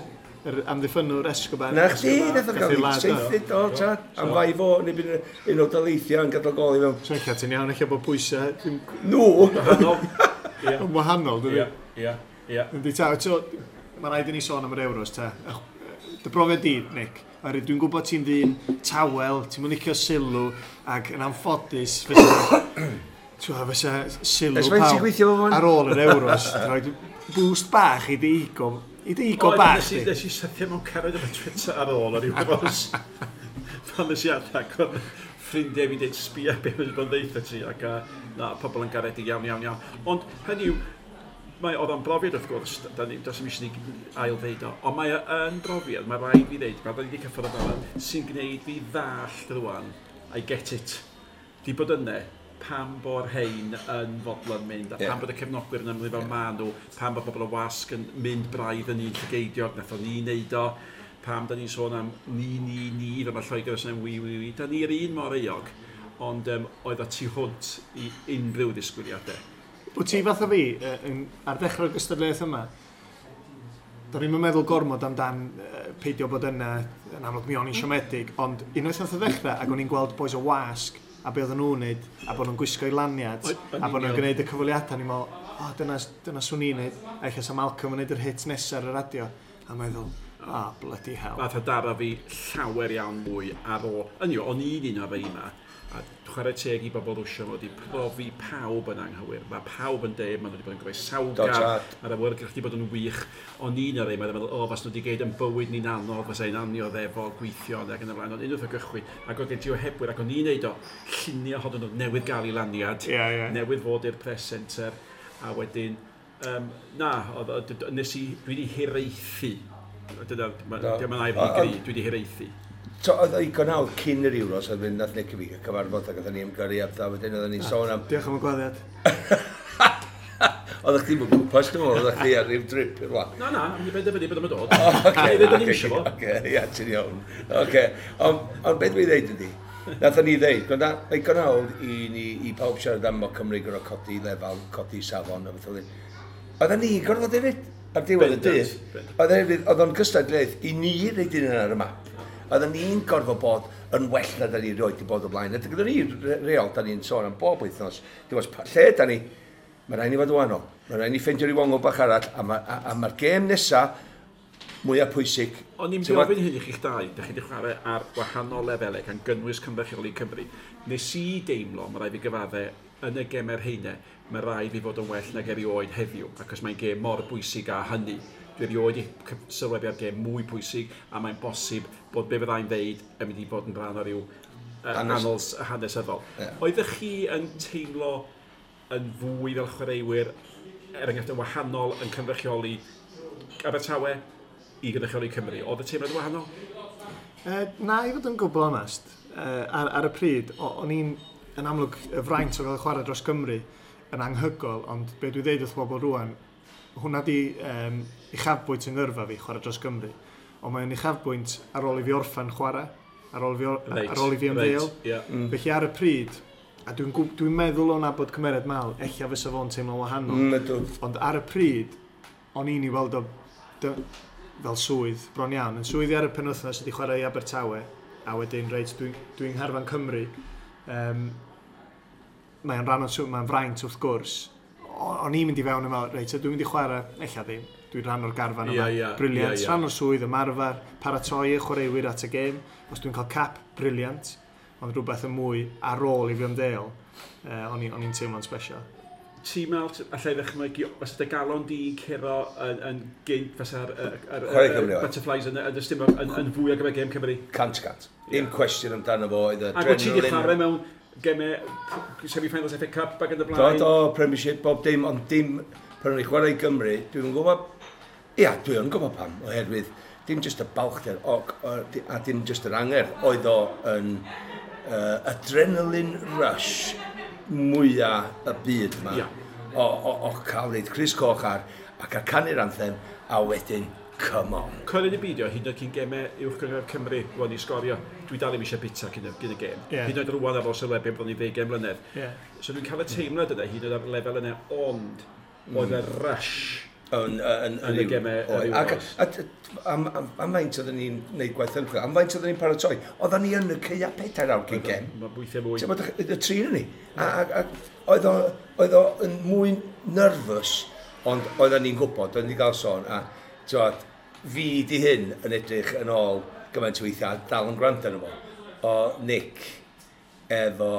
Yr amddiffynnwr Escobar. Na chdi, nath o gael ei saethu, do, ta, am fai fo, neu bydd un o daleithiau yn gadael gol i fewn. So ella ti'n iawn, ella bod pwysau... Nhw! Yn wahanol, dydy? Ie, ie. Yndi, ta, so, mae rhaid i ni sôn am yr Euros, ta. Dy brofiad di, Nick, dwi'n gwybod ti'n ddyn tawel, ti'n mynd licio sylw, ac yn anffodus, fysa sylw pawb ar ôl yr Euros, rhaid boost bach i dy ego. I dy ego bach di. Nes i sythio mewn cariad efo Twitter ar ôl yr Euros. Pan nes i adag, oedd ffrindiau fi'n deud sbia be wedi bod yn ddeutha ti, ac na, pobl yn garedig iawn, iawn, iawn. Ond hynny yw, mae oedd o'n brofiad wrth gwrs, does dim eisiau ni ail ddeud o, ond mae yn brofiad, mae rhaid fi ddeud, mae rhaid i cyffwrdd o fel sy'n gwneud fi ddallt rwan, I get it. Di bod yna, pam bo'r hein yn fodlon mynd, a pam bod y cefnogwyr yn ymwneud fel ma nhw, pam bod bobl o wasg yn mynd braidd yn un llygeidiog, nath o ni wneud o, pam da ni'n sôn am ni, ni, ni, fel mae Lloegr yn sôn am wi, wi, wi, da ni'r un mor euog, ond oedd o tu hwnt i unrhyw ddisgwyliadau. Wyt ti fath o fi, ar dechrau'r gystadleuaeth yma, do'n i'm yn meddwl gormod amdan peidio bod yna, yn amlwg mi o'n i'n siomedig, ond unwaith nath o ddechrau, ac o'n i'n gweld boys o wasg, a be oedden nhw'n neud, a bod nhw'n gwisgo i laniad, a bod nhw'n gwneud y cyfweliadau, ni'n meddwl, o, dyna swn i'n neud, a ella sa Malcolm yn neud yr hit nesaf ar y radio, a meddwl, o, bloody hell. Nath o daro fi llawer iawn mwy ar ôl, yn yw, o'n i'n un o'r rhai yma, a chwarae teg i bobl Rwsia, mae wedi profi pawb yn anghywir. Mae pawb yn deud, maen nhw wedi bod yn groesawgar, mae'r awyrgylch wedi bod yn wych. O'n i'n o'r rhai, mae'n meddwl, o, fas nhw wedi geid yn bywyd ni'n anodd, fas ein annioddefo, gweithio, ac yn y blaen. Ond unwaith o gychwyn, ac oedd gen ti ohebwyr, ac o'n i'n neud o, llunio hodyn nhw newydd gael ei laniad, newydd fod i'r press centre, a wedyn, na, nes i, dwi wedi hiraethu. Dyna, diolch yn air i gri, dwi wedi hiraethu. So, oedd o digon hawdd cyn yr Euros, oedd mynd nath Nick a fi cyfarfod ac oedden ni ymgyrru a pethau, wedyn oedden ni'n sôn am... Diolch am y gwaddiad. Oeddech chdi'n mynd gwmpas, dwi'n meddwl, oeddech chdi ar ryw drip i'r wlad. Na, na, mi benderfynu bod o'n dod. Oce, ia, ti'n iawn. Oce, ond beth dwi'n dweud ydi, nathon ni ddeud, mae digon hawdd i ni, i pawb siarad am o Cymru gorfod codi lefel, codi safon a beth oedd. Oedden ni gorfod hefyd, ar diwedd y dydd. Oedd o'n gystadleuaeth i ni roid un ar y map. Oedden ni'n gorfod bod yn well na da ni rioed wedi bod o blaen. A gyda ni reol, da ni'n sôn am bob wythnos. Dim ots lle da ni, mae rhaid ni fod yn wahanol. Mae rhaid ni ffeindio ryw ongl bach arall, a mae'r gêm nesaf mwyaf pwysig. O'n i'n gofyn hyn i chi'ch dau, da chi wedi chwarae ar wahanol lefelau gan gynnwys cynrychioli Cymru. Nes i deimlo, mae rhaid fi gyfadde, yn y gemau'r heine, mae rhaid fi fod yn well nag erioed heddiw, achos mae'n gêm mor bwysig â hynny. Dwi erioed i sylwebu ar gêm mwy pwysig, a mae'n bosib bod be fyddai'n ddeud yn mynd i fod yn rhan o ryw annals hanesyddol. Yeah. Oeddech chi yn teimlo yn fwy fel chwaraewyr, er enghraifft yn wahanol yn cynrychioli Abertawe i gynrychioli Cymru? Oedd y teimlad yn wahanol? Na, i fod yn gwbl onest, ar y pryd, o'n i'n yn amlwg y fraint o gael chwarae dros Gymru yn anghygol, ond be dwi ddeud wrth bobl rwan, hwnna di uchafbwynt yng ngyrfa fi, chwarae dros Gymru. Ond mae'n uchafbwynt ar ôl i fi orffen chwarae, ar ôl i fi, right, ar ôl i fi ymddeol. Right, yeah. Felly ar y pryd, a dwi'n meddwl o'n nabod cymeriad Mal, ella fysa fo'n teimlo'n wahanol. Ond ar y pryd, o'n i'n i weld o fel swydd, bron iawn. Yn swyddi ar y penwythnos ydi chwarae i Abertawe, a wedyn, reit, dwi'n ngharfan Cymru. Mae'n rhan o'n swydd, mae'n fraint wrth gwrs. O'n i'n mynd i fewn yma, reit, dwi'n mynd i chwarae, ella ddim, dwi'n rhan o'r garfan yma. Brilliant, rhan o'r swydd, ymarfer, paratoi y chwaraewyr at y gêm. Os dwi'n cael cap, brilliant. Ond rhywbeth yn mwy ar ôl i fi ymddeol, o'n i'n teimlo'n special. Ti'n meddwl, allai ddychmygu, fysa dy galon di curo yn gynt, fysa'r butterflies yn y stumog yn fwy ar gyfer gêm Cymru? 100%. Dim cwestiwn amdano fo, oedd adrenaline. Ac wyt ti wedi chwarae mewn gemau semi-finals FA Cup ac yn y blaen? Do, Premiership, bob dim, ond dim pan o'n i chwarae i Gymru, dwi'n gwybod, ia, dwi'n gwybod pam, oherwydd dim just y balchder a dim just yr angerdd, oedd o yn adrenaline rush mwyaf y byd yma. Yeah. O cael reid crys coch ar a cael canu'r anthem a wedyn come on. Coelyn y beidio, hyd yn oed cyn gemau uwch gynghrair Cymru, rwan i sgorio, dwi dal ddim eisiau bita cyn y gêm. Yeah. Hyd yn oed rwan ar ôl sylwebu bron i 20 mlynedd. Yeah. So dwi'n cael y teimlad yna, hyd yn oed ar lefel yna, ond oedd y rush yn y gemau yr Euros. Am faint oedden ni'n gwneud gwaith ymchwil, am faint oedden ni'n paratoi, oedden ni yn y caea 4 awr cyn gem. Mae weithiau mwy. Y tri yn ni. Oedd o yn mwy nervous, ond oedden ni'n gwybod, oedden ni'n cael sôn, a tywed, fi di hyn yn edrych yn ôl gymaint o weithiau, a dal yn gwrando arno fo, o Nick efo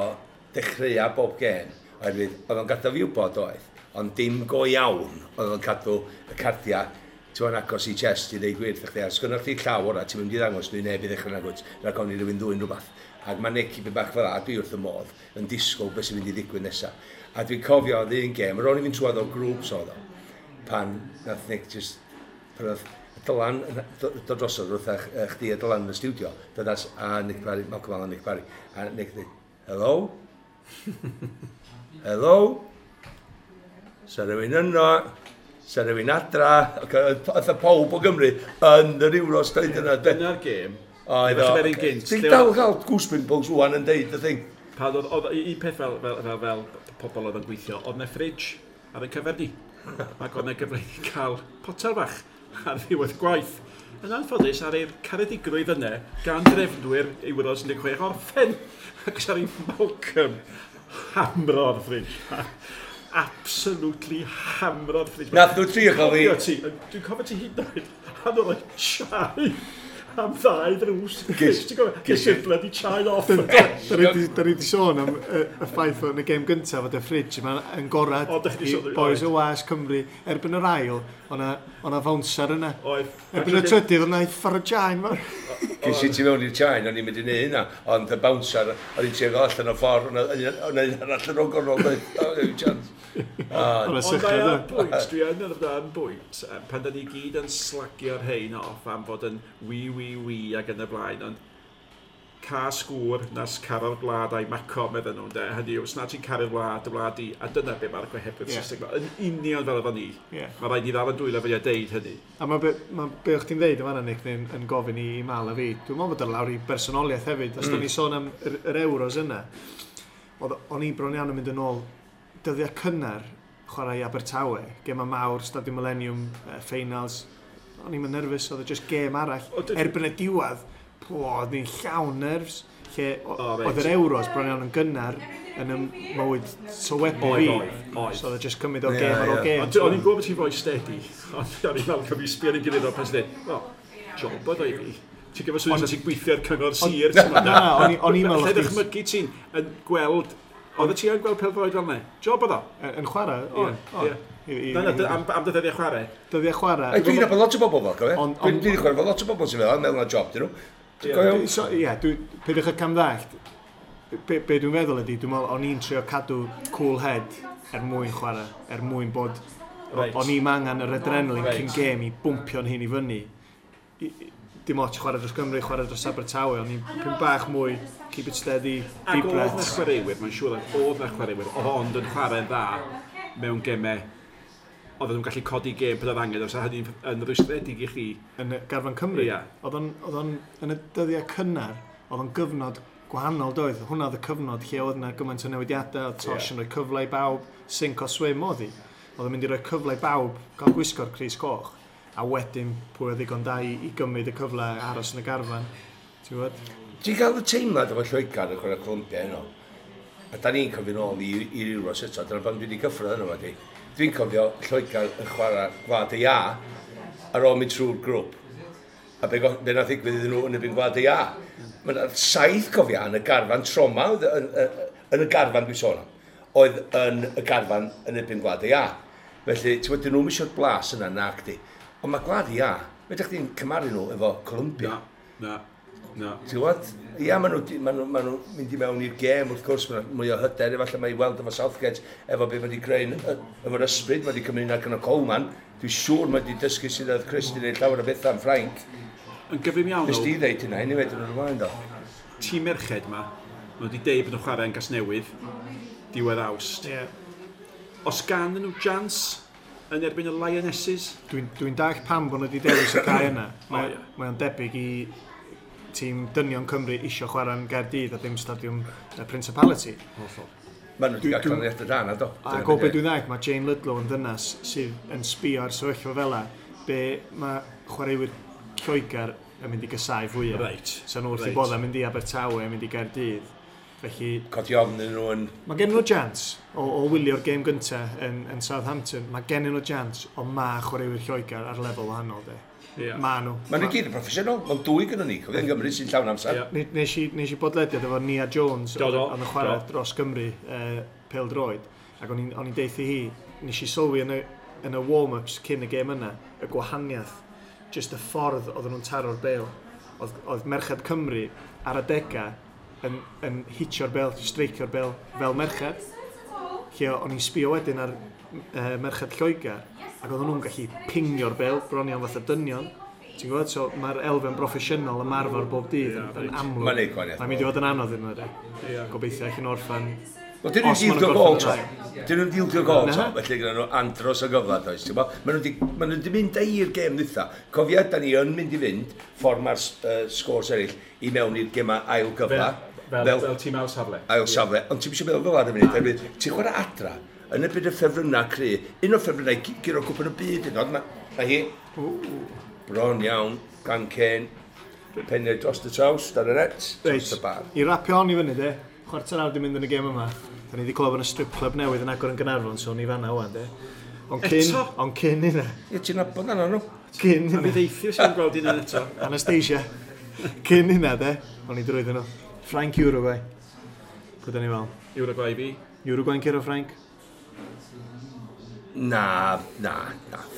dechreuau bob gêm, oherwydd oedd o'n gadael fi wybod oedd, ond dim go iawn oedd o'n cadw y cardiau ti'n agos i chest i ddeud gwir chdi, a sgynnoch chdi llaw ora, ti'n mynd i ddangos nhw i neb i ddechrau nagwyd, rhaid ofn i rywun ddwyn rhywbeth. Ac mae Nick i beth bach fel a dwi wrth y modd yn disgwyl beth sy'n mynd i ddigwydd nesaf. A dwi'n cofio oedd un gêm, yr o'n i fynd trwodd o grŵps oedd o, pan nath Nick just, pan oedd Dylan dod drosodd wrth chdi a Dylan yn y stiwdio, dod a Nick Parry, Malcolm Allen, Nick Parry, a Nick dweud, hello? Hello? Sa rhywun yno, sa rhywun adra, oedd y pawb o Gymru yn yr Euros dweud yna. Dyna'r gêm. Oedd o. Ti'n dal gael goose pimples rwan yn deud y thing. Pan oedd un peth fel pobl oedd yn gweithio, oedd na fridge ar ein cyfer ni. Ac oedd na gyfle i cael potel bach ar ddiwedd gwaith. Yn anffodus, ar ei'r caredigrwydd yna, gan drefnwyr Euros 16 orffen. Ac ar ei Malcolm hamro'r fridge. Absolutely hamro'r fridge. Nath nhw trio cael fi. Dwi'n cofio ti hyd yn oed, a nhw'n rhoi chai am ddau ddrws. Ges i'r bloody chai off. Da ni wedi sôn am y ffaith yn y gêm gyntaf fod y fridge yma yn gorad i boys o was Cymru. Erbyn yr ail, o'na fownser yna. Erbyn y trydydd, o'na uffar o chai. Ges i ti mewn i'r chai, o'n i'n mynd i neud hynna, ond y bouncer, o'n i'n trio gael allan o ffordd, o'na un arall yn o'r gornol, o'n chance. Ond mae ar bwynt, dwi yn ar bwynt, pan da ni gyd yn slagio'r hein off am fod yn wi, wi, wi ac yn y blaen, ond cas gŵr nas caro'r wlad a'i maco, medden nhw'n de. Hynny yw, os na ti'n caru'r wlad, y wlad i, a dyna be mae'r gohebydd Saesneg. Yn union fel efo ni. Yeah. Mae rhaid i ddal yn dwylo fe a deud hynny. A mae be o'ch ti'n ddeud yma, Nick, yn gofyn i Mal a fi, dwi'n meddwl bod ar lawr i bersonoliaeth hefyd. Os da ni sôn am yr Euros yna, o'n i bron iawn yn mynd yn ôl dyddiau cynnar chwarae i Abertawe, gema mawr, Stadiwm Millennium, finals. O'n i'n nerfus, oedd e just gêm arall. Erbyn y diwedd, oedd ni'n llawn nerves, lle oedd yr Euros bron iawn yn gynnar yn y mywyd sylwebu fi. So oedd e just cymryd o gêm ar ôl gêm. O'n i'n gwybod bod ti'n fwy steady, ond o'n i'n meddwl cyfri sbio ar ei gilydd o pan ti'n dweud, wel, job oedd o i fi. Ti'n gyfer swydd ti'n gweithio ar cyngor sir. Na, o'n i'n meddwl... Lle ddychmygu ti'n yn gweld Oedd y ti yn gweld pêl-droed fel 'na? Job oedd o? Yn chwarae? O, o. Na, na, am dyddiau chwarae. Dyddiau chwarae. Dwi'n nabod lot o bobl fel, cofio? Dwi'n wedi chwarae fel lot o bobl sy'n fel, meddwl na job dyn nhw. Ie, peidiwch â camddallt. Be dwi'n feddwl ydy, dwi'n meddwl o'n i'n trio cadw cool head er mwyn chwarae, er mwyn bod... O'n i'm angen yr adrenaline cyn gêm i bwmpio'n hun i fyny. Dim ots chwarae dros Gymru, chwarae dros Abertawe, o'n i'n pyn bach mwy, keep it steady, deep breaths. Ac oedd na chwaraewyr, mae'n siŵr oedd na chwaraewyr, oedd ond yn chwarae'n dda mewn gemau, oedden nhw'n gallu codi gêm pan oedd angen, os hynny'n yn rwystredig i chi. Yn garfan Cymru, oedd o'n yn y dyddiau cynnar, oedd o'n gyfnod gwahanol doedd. Hwnna oedd y cyfnod lle oedd yna gymaint o newidiadau, oedd Tosh yn rhoi cyfle i bawb, sink or swim oedd hi. Oedd o'n mynd i roi cyfle i bawb gael gwisgo'r crys coch. A wedyn pwy oedd ddigon da i gymryd y cyfle aros yn y garfan. Ti'n gwybod? Ti'n cael y teimlad efo Lloegr yn chwarae Colombia heno? A da ni'n cofio nôl i'r Euros eto, dyna pan dwi wedi cyffwrdd yno fo. Dwi'n cofio Lloegr yn chwarae Gwlad y Iâ ar ôl mynd trwy'r grŵp. A be nath ddigwydd iddyn nhw yn erbyn Gwlad y Iâ. Mae yna 7 cofia yn y garfan trauma, yn y garfan dwi'n sôn am, oedd yn y garfan yn erbyn Gwlad y Iâ. Felly, ti'n gwybod, dyn nhw'm eisiau'r blas yna nac di. Ond mae Gwlad y Iâ, fedrwch chdi'n cymharu nhw efo Colombia. Na, na. Ti'n gwybod? Ia, maen nhw'n mynd i mewn i'r gêm, wrth gwrs, maen nhw mwy o hyder, efallai mae i weld efo Southgate, efo be mae wedi creu, efo'r ysbryd, mae wedi cymryd yna gan o Coleman. Dwi'n siŵr mae wedi dysgu sydd oedd Chris wedi gwneud llawer o bethau yn Ffrainc. Yn gyflym iawn. Nes di ddeud hynna, anyway, dyn nhw'n ymlaen do. Tîm merched ma, maen nhw wedi deud bod nhw'n chwarae yn Gasnewydd, diwedd Awst. Yeah. Os gan nhw chance yn erbyn y Lionesses? Dwi'n dallt pam bod nhw wedi dewis y cae yna. Mae o'n debyg i tîm dynion Cymru isio chwarae yn Gaerdydd a dim stadiwm Principality. Hollol. Maen nhw wedi cael canlyniadau da na, do. Ac o be dwi'n ddallt, mae Jane Ludlow yn ddynas sydd yn sbio ar sefyllfa fel 'a, be mae chwaraewyr Lloegr yn mynd i gysau fwyaf. Right. So nhw wrth i bodda mynd i Abertawe, mynd i Gaerdydd. Felly, codi ofn iddyn nhw yn... Mae gen nhw chance o wylio'r gêm gyntaf yn Southampton. Mae gen nhw chance, ond mae chwaraewyr Lloegr ar lefel wahanol, de. Yeah. Ma nhw. Mae nhw gyd yn proffesiynol. Mae'n dwy gyda ni. Cofio yn Gymru sy'n llawn amser. Yeah. Nes i bodlediad efo Nia Jones oedd yn chwarae dros Gymru pêl-droed. Ac o'n i'n deuthu hi, nes i sylwi yn y warm-ups cyn y gêm yna, y gwahaniaeth, just y ffordd oedden nhw'n taro'r bêl. Oedd merched Cymru ar adegau yn hitio'r bêl, streicio'r bêl fel merched. Lle o'n i'n sbio wedyn ar merched Lloegr, ac oedden nhw'n gallu pingio'r bêl, bron iawn fatha dynion. Ti'n gwybod? So mae'r elfen broffesiynol ymarfer bob dydd yn amlwg. Mae'n neud gwahaniaeth. Mae'n mynd i fod yn anodd iddyn nhw, de. Gobeithio allan orffan. Wel, dyn nhw'n dildio gol to. Dyn nhw'n dildio gol to, felly gyda nhw andros o gyfle, does. Maen nhw wedi mynd i'r gêm ddwytha. Cofia, da ni yn mynd i fynd, ffordd mae'r sgôrs eraill, i mewn i'r gemau ail gyfle. Fel tîm ail safle. Ail safle, ond ti'n eisiau meddwl fel ar y munud, oherwydd ti'n chwarae adra, yn y byd y ffefrynnau cry, un o'r ffefrynnau guro cwpan y byd yn oed, mae hi, bron iawn, gan Kane, peniau dros y traws, dan y net, dros y bar. I rapio on i fyny, de, chwarter awr di mynd yn y gêm yma, da ni wedi clywed yn y strip club newydd yn agor yn Gaernarfon, so ni fanna wan, de. Ond cyn hynna. Ie, ti'n nabod yna nhw. Cyn hynna. A fi ddeithio sy'n gweld hynna eto. Anastasia. Cyn hynna, de, o'n i drwyddyn nhw. Ffrainc, Uruguay. Pwy da ni fel? Uruguay fi. Uruguay'n curo Ffrainc? Na.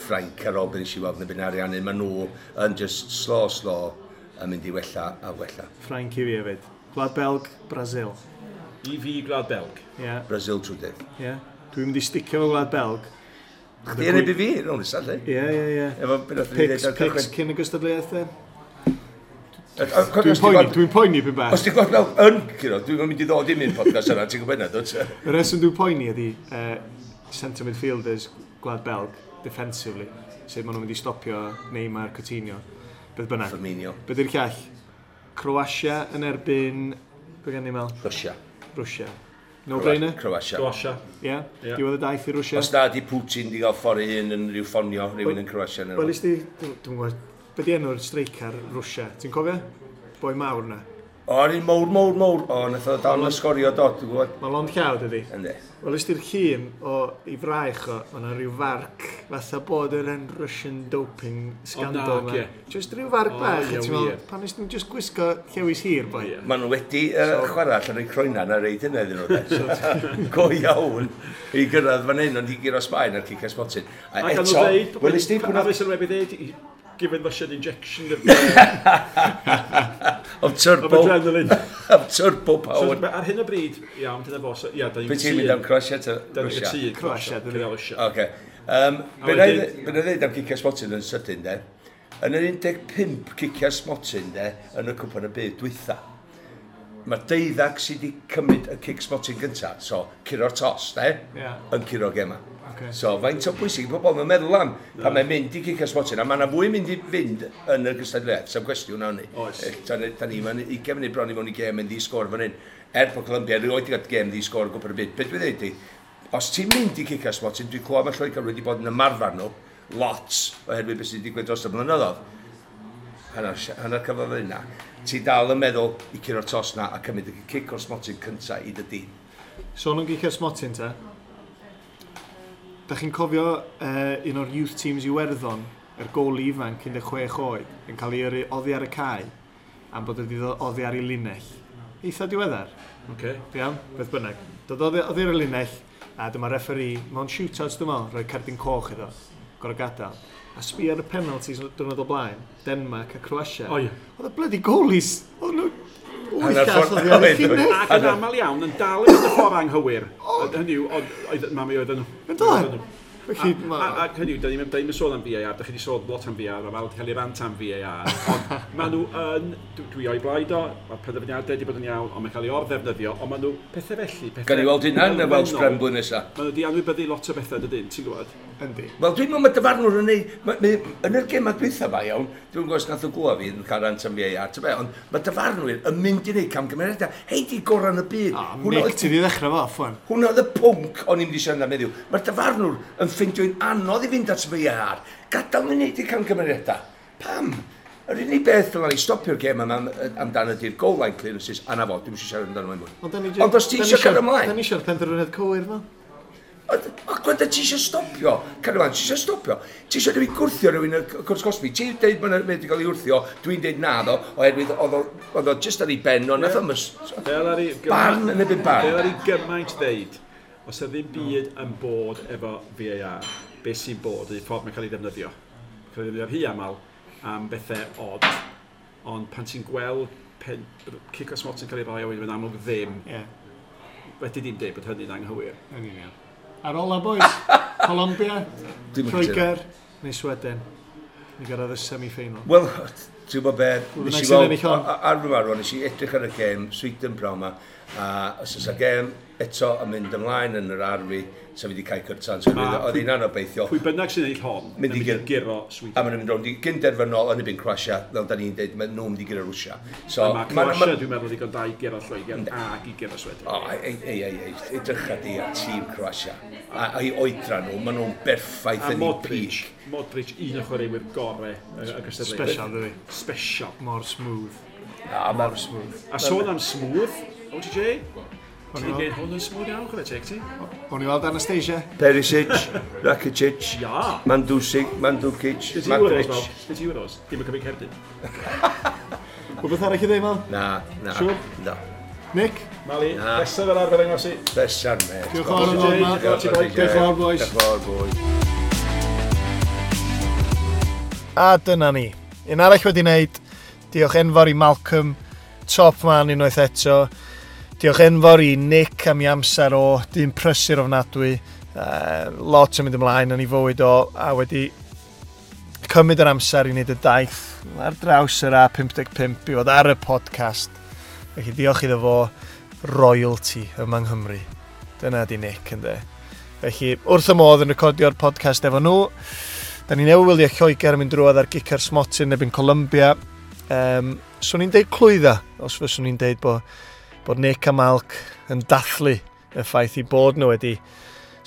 Ffrainc ar ôl beth nes i weld yn y byn ariannu. Maen nhw yn just slow, yn mynd i wella a wella. Ffrainc i fi hefyd. Gwlad Belg, Brasil. I fi Gwlad Belg. Yeah. Brasil trwydydd. Ie. Yeah. Dwi'n mynd i sticio fo Gwlad Belg. Chdi yn erbyn fi, rownd nesaf, lle? Ie. Efo beth nath ni ddeud ar Picks cychwyn. cyn y gystadleuaeth, de? Dwi'n poeni pyn bach. Os ti'n gweld fel yn curo, dwi'n mynd i ddod i mynd podcast yna, ti'n gwybod yna, dwt? Y reswm dwi'n poeni ydi centre midfielders Gwlad Belg, defensively, sut maen nhw'n mynd i stopio Neymar, Coutinho, beth bynnag. Firmino. Be di'r llall? Croatia yn erbyn, be gen i mel? Russia. Russia. No brainer? Croatia. Croatia. Ie. Diwedd y daith i Russia. Os na di Putin di gael ffordd ei hun yn rhyw ffonio rhywun yn Croatia. Wel, is di, dwi'n gwybod, be di enw'r streicar Russia? Ti'n cofio? Boi mawr na. O, yr un mowr, mowr, mowr. O, nath o dal yn sgorio dod, dwi'n gwybod. Mae lond llaw, dydi? Yndi. Wel, ys di'r llun o i fraich o, mae yna rhyw farc, fatha bod yr en Russian doping scandal O, na, 'ma. ie. Just rhyw farc O, bach, ie, a ti'n meddwl, wir. pan nes nhw'n just gwisgo llewis hir, boi? Ie. Maen nhw wedi chwarae allan o'i croena na reid hynna iddyn nhw. de. Go iawn i gyrraedd fan hyn, ond i guro Sbaen ar cicio smotyn. A Ac o'n nhw eto, ddeud... wel, ys di A fe sylwebu ddeud, given Russian injection of, of turbo, of adrenaline. of turbo So, power. ar hyn o bryd, iawn, dyna fo, so, ia, da ni'n Be ti'n mynd am Croatia ta Da ni'n Russia? cytûn. Croatia, dyn ni. Cynnal Russia. Oce. A Be na i ddeud am cicio smotyn yn sydyn, de? Yn yr 15 cicio smotyn, de, yn y cwpan y byd dwytha, mae deuddag sydd wedi cymryd y cic smotyn gynta, so curo'r tos, de, Ie. yn curo gema. Ocê. So, faint o bwysig i pobl mae'n meddwl am pan mae'n mynd i cicio smotyn, a mae yna fwy mynd i fynd yn y gystadleuaeth, sef cwestiwn awn ni. Oes. Da ni, mae'n 20 munud bron i mewn i gêm yn ddi-sgôr fan hyn. Er bod Colombia erioed wedi cael gêm ddi-sgôr o gwpan y byd. Be dwi'n dweud i, os ti'n mynd i cicio smotyn, dwi'n clywed mae Lloegr wedi bod yn ymarfer nhw, lot, oherwydd beth sydd wedi digwydd dros y blynyddoedd. Hanner cyfnod yna. Ti dal yn meddwl i curo'r tos na a cymryd y cic o'r smotyn cynta i dy dîm. So nhw'n gicio smotyn ta? Da chi'n cofio un o'r youth teams Iwerddon, yr goli ifanc 16 oed, yn cael ei yrru oddi ar y cae, am bod wedi ddod oddi ar ei linell. Eitha diweddar, Oce. iawn, beth bynnag. Dod oddi ar y linell, a dyma referee, mewn shootouts dwi'n meddwl, rhoi cerdyn coch iddo, gorau gadael. A sbi ar y penalties diwrnod o blaen, Denmark a Croatia. O, ie. Oedd y bloody goalies, oedd nhw wyth Hanner all ffordd- oddi ar y oedd, oedd. llinell. Ac yn aml iawn, yn dal i fynd y ffordd anghywir. Hynny yw, oedd mami oedd nhw. Yn doedd? Felly, Ac hynny yw, da ni'n sôn am VAR, da chi wedi sôn lot am VAR, mae wedi cael ei rant am VAR, ond maen nhw yn, dwi o'i blaid o, mae'r penderfyniadau wedi bod yn iawn, ond mae'n cael ei orddefnyddio, ond maen nhw pethau felly, pethau Gan i weld hynna yn y Welsh elfennol. Prem blwyddyn nesaf. Maen nhw wedi anwybyddu lot o bethau, dydyn, ti'n gwybod? Yndi. Wel, dwi'n meddwl mae dyfarnwr yn ei... Yn yr gemau dwytha fa, iawn, dwi'n gwybod os nath o glwa fi yn cael rant am VAR, ta be, ond mae dyfarnwyr yn mynd i wneud camgymeriadau. Hei, di gorau yn y byd. O, Hwnna Nick, oedd- ti di ddechrau fo off, wan. Hwna oedd y pwnc o'n i'n mynd i siarad am heddiw. Mae'r dyfarnwr yn ffeindio'n anodd i fynd at VAR. Gadael nhw wneud eu camgymeriadau. Pam? Yr unig beth dylan ni stopio'r gêm yma amdano ydy'r goal line clearances, a na fo, dwi'm eisiau siarad amdano fo mwy. Ond os ti eisiau cael ymlaen, Da ni eisiau'r penderfyniad cywir, fel. O, gwenda, ti eisiau stopio? Cario ti eisiau stopio? Ti eisiau rhywun gwrthio rhywun y cwrs cosbi? Ti'n deud bod wedi cael ei wrthio, dwi'n deud na ddo, oherwydd oedd o just ar ei ben o, nath o'm Fel ar ei Barn yn erbyn barn. Fel ar ei gymaint ddeud, os yna ddim byd yn bod efo VAR, beth sy'n bod ydy ffordd mae'n cael ei ddefnyddio. Mae'n cael ei ddefnyddio rhy aml am bethau od, ond pan ti'n gweld pen, cic o smot yn cael ei roi a wedyn mae'n amlwg ddim, Ie, wedi dim deud bod hynny'n anghywir. yn union. Ar ola, boys, Colombia, Dwi'm yn cytuno. Lloegr, neu Sweden. Ni gyrraedd y semi-final. Wel, ti'n gwybod be, Pwy nes bynnag i sy'n weld, ennill hon. ar fy marw, nes i edrych ar y gêm, Sweden prawn ma, a os oes y gêm eto yn mynd ymlaen yn yr arfi, sa fi wedi cael cyrtan, so oedd hi'n anobeithiol. Pwy bynnag sy'n ennill hon, Mynd i yn mynd i guro Sweden. A maen nhw'n mynd rownd i gynderfynol yn erbyn Croatia, fel da ni'n deud, maen nhw'n mynd i guro Rwsia. So, A mae Croatia, dwi'n meddwl, ddigon da i guro Lloegr ac i guro Sweden. O, ei, ei, ei, ei, edrycha di ar tîm Croatia. A'i oedran nhw, maen nhw'n berffaith A yn eu Modric, peak. Modric, un o chwaraewyr gorau y gystadleuaeth. Special, dydi. Special. Mor smooth. A Mor smooth. A sôn am smooth, OTJ, ti'n gwneud hwn yn smooth iawn, chwarae teg ti? O'n i weld Anastasia. Perisic, Rakitic, Ia. Mandusic, Mandukic, Beth ti Euros, Madric. fel? Beth ti Euros? Dim yn cymryd cerdyn. Rhywbeth arall i ddeud, Mal? Na, na. Siŵr? Na. Nick? Mali, nesaf fel arfer yng Nghymru. Pleser, mate. Diolch yn fawr am ddod, Mal. Diolch yn fawr, Diolch yn fawr, boys. Diolch yn fawr, boys. A dyna ni. Un arall wedi wneud. Diolch enfawr i Malcolm, top man unwaith eto. Diolch enfawr i Nick am ei amser o, dyn prysur ofnadwy. Lot yn mynd ymlaen yn ei fywyd o, a wedi cymryd yr amser i wneud y daith ar draws yr A55 i fod ar y podcast. Felly diolch iddo fo, royalty yma yng Nghymru. Dyna di Nick, ynddo. Felly, wrth y modd yn recordio'r podcast efo nhw. Da ni newydd wylio Lloegr yn mynd drwodd ar gica'r smotyn yn erbyn Colombia. Swn i'n deud clwydda, os fyswn i'n deud bod Nick a Malc yn dathlu y ffaith i bod nhw wedi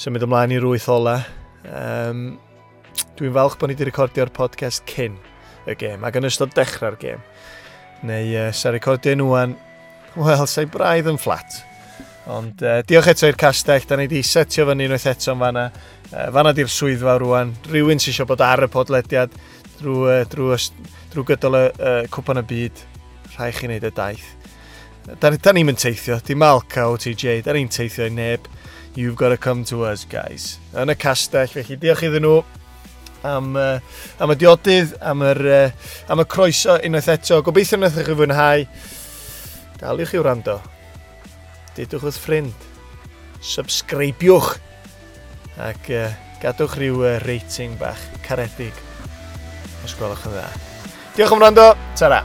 symud ymlaen i'r wyth ola. Dwi'n falch bod ni wedi recordio'r podcast cyn y gêm ac yn ystod dechrau'r gêm. Neu sa recordio nhw wan, Wel, sa'i braidd yn fflat. Ond diolch eto i'r castell, da ni wedi setio fyny unwaith eto yn fanna. Fanna di'r swyddfa rwan. Rhywun sy'n eisiau bod ar y podlediad drwy gydol y cwpan y byd. Rhaid chi wneud y daith. Da ni'n mynd teithio, dim Alca OTJ, da ni'n teithio i neb. You've got to come to us, guys. Yn y castell, felly diolch iddyn nhw am y diodydd, am y croeso unwaith eto. Gobeithio wnaethoch chi fwynhau. Daliwch i wrando. Dudwch wrth ffrind. Subscribiwch. Ac gadwch rhyw rating bach caredig. Os gwelwch yn dda. Diolch am wrando. Ta-ra.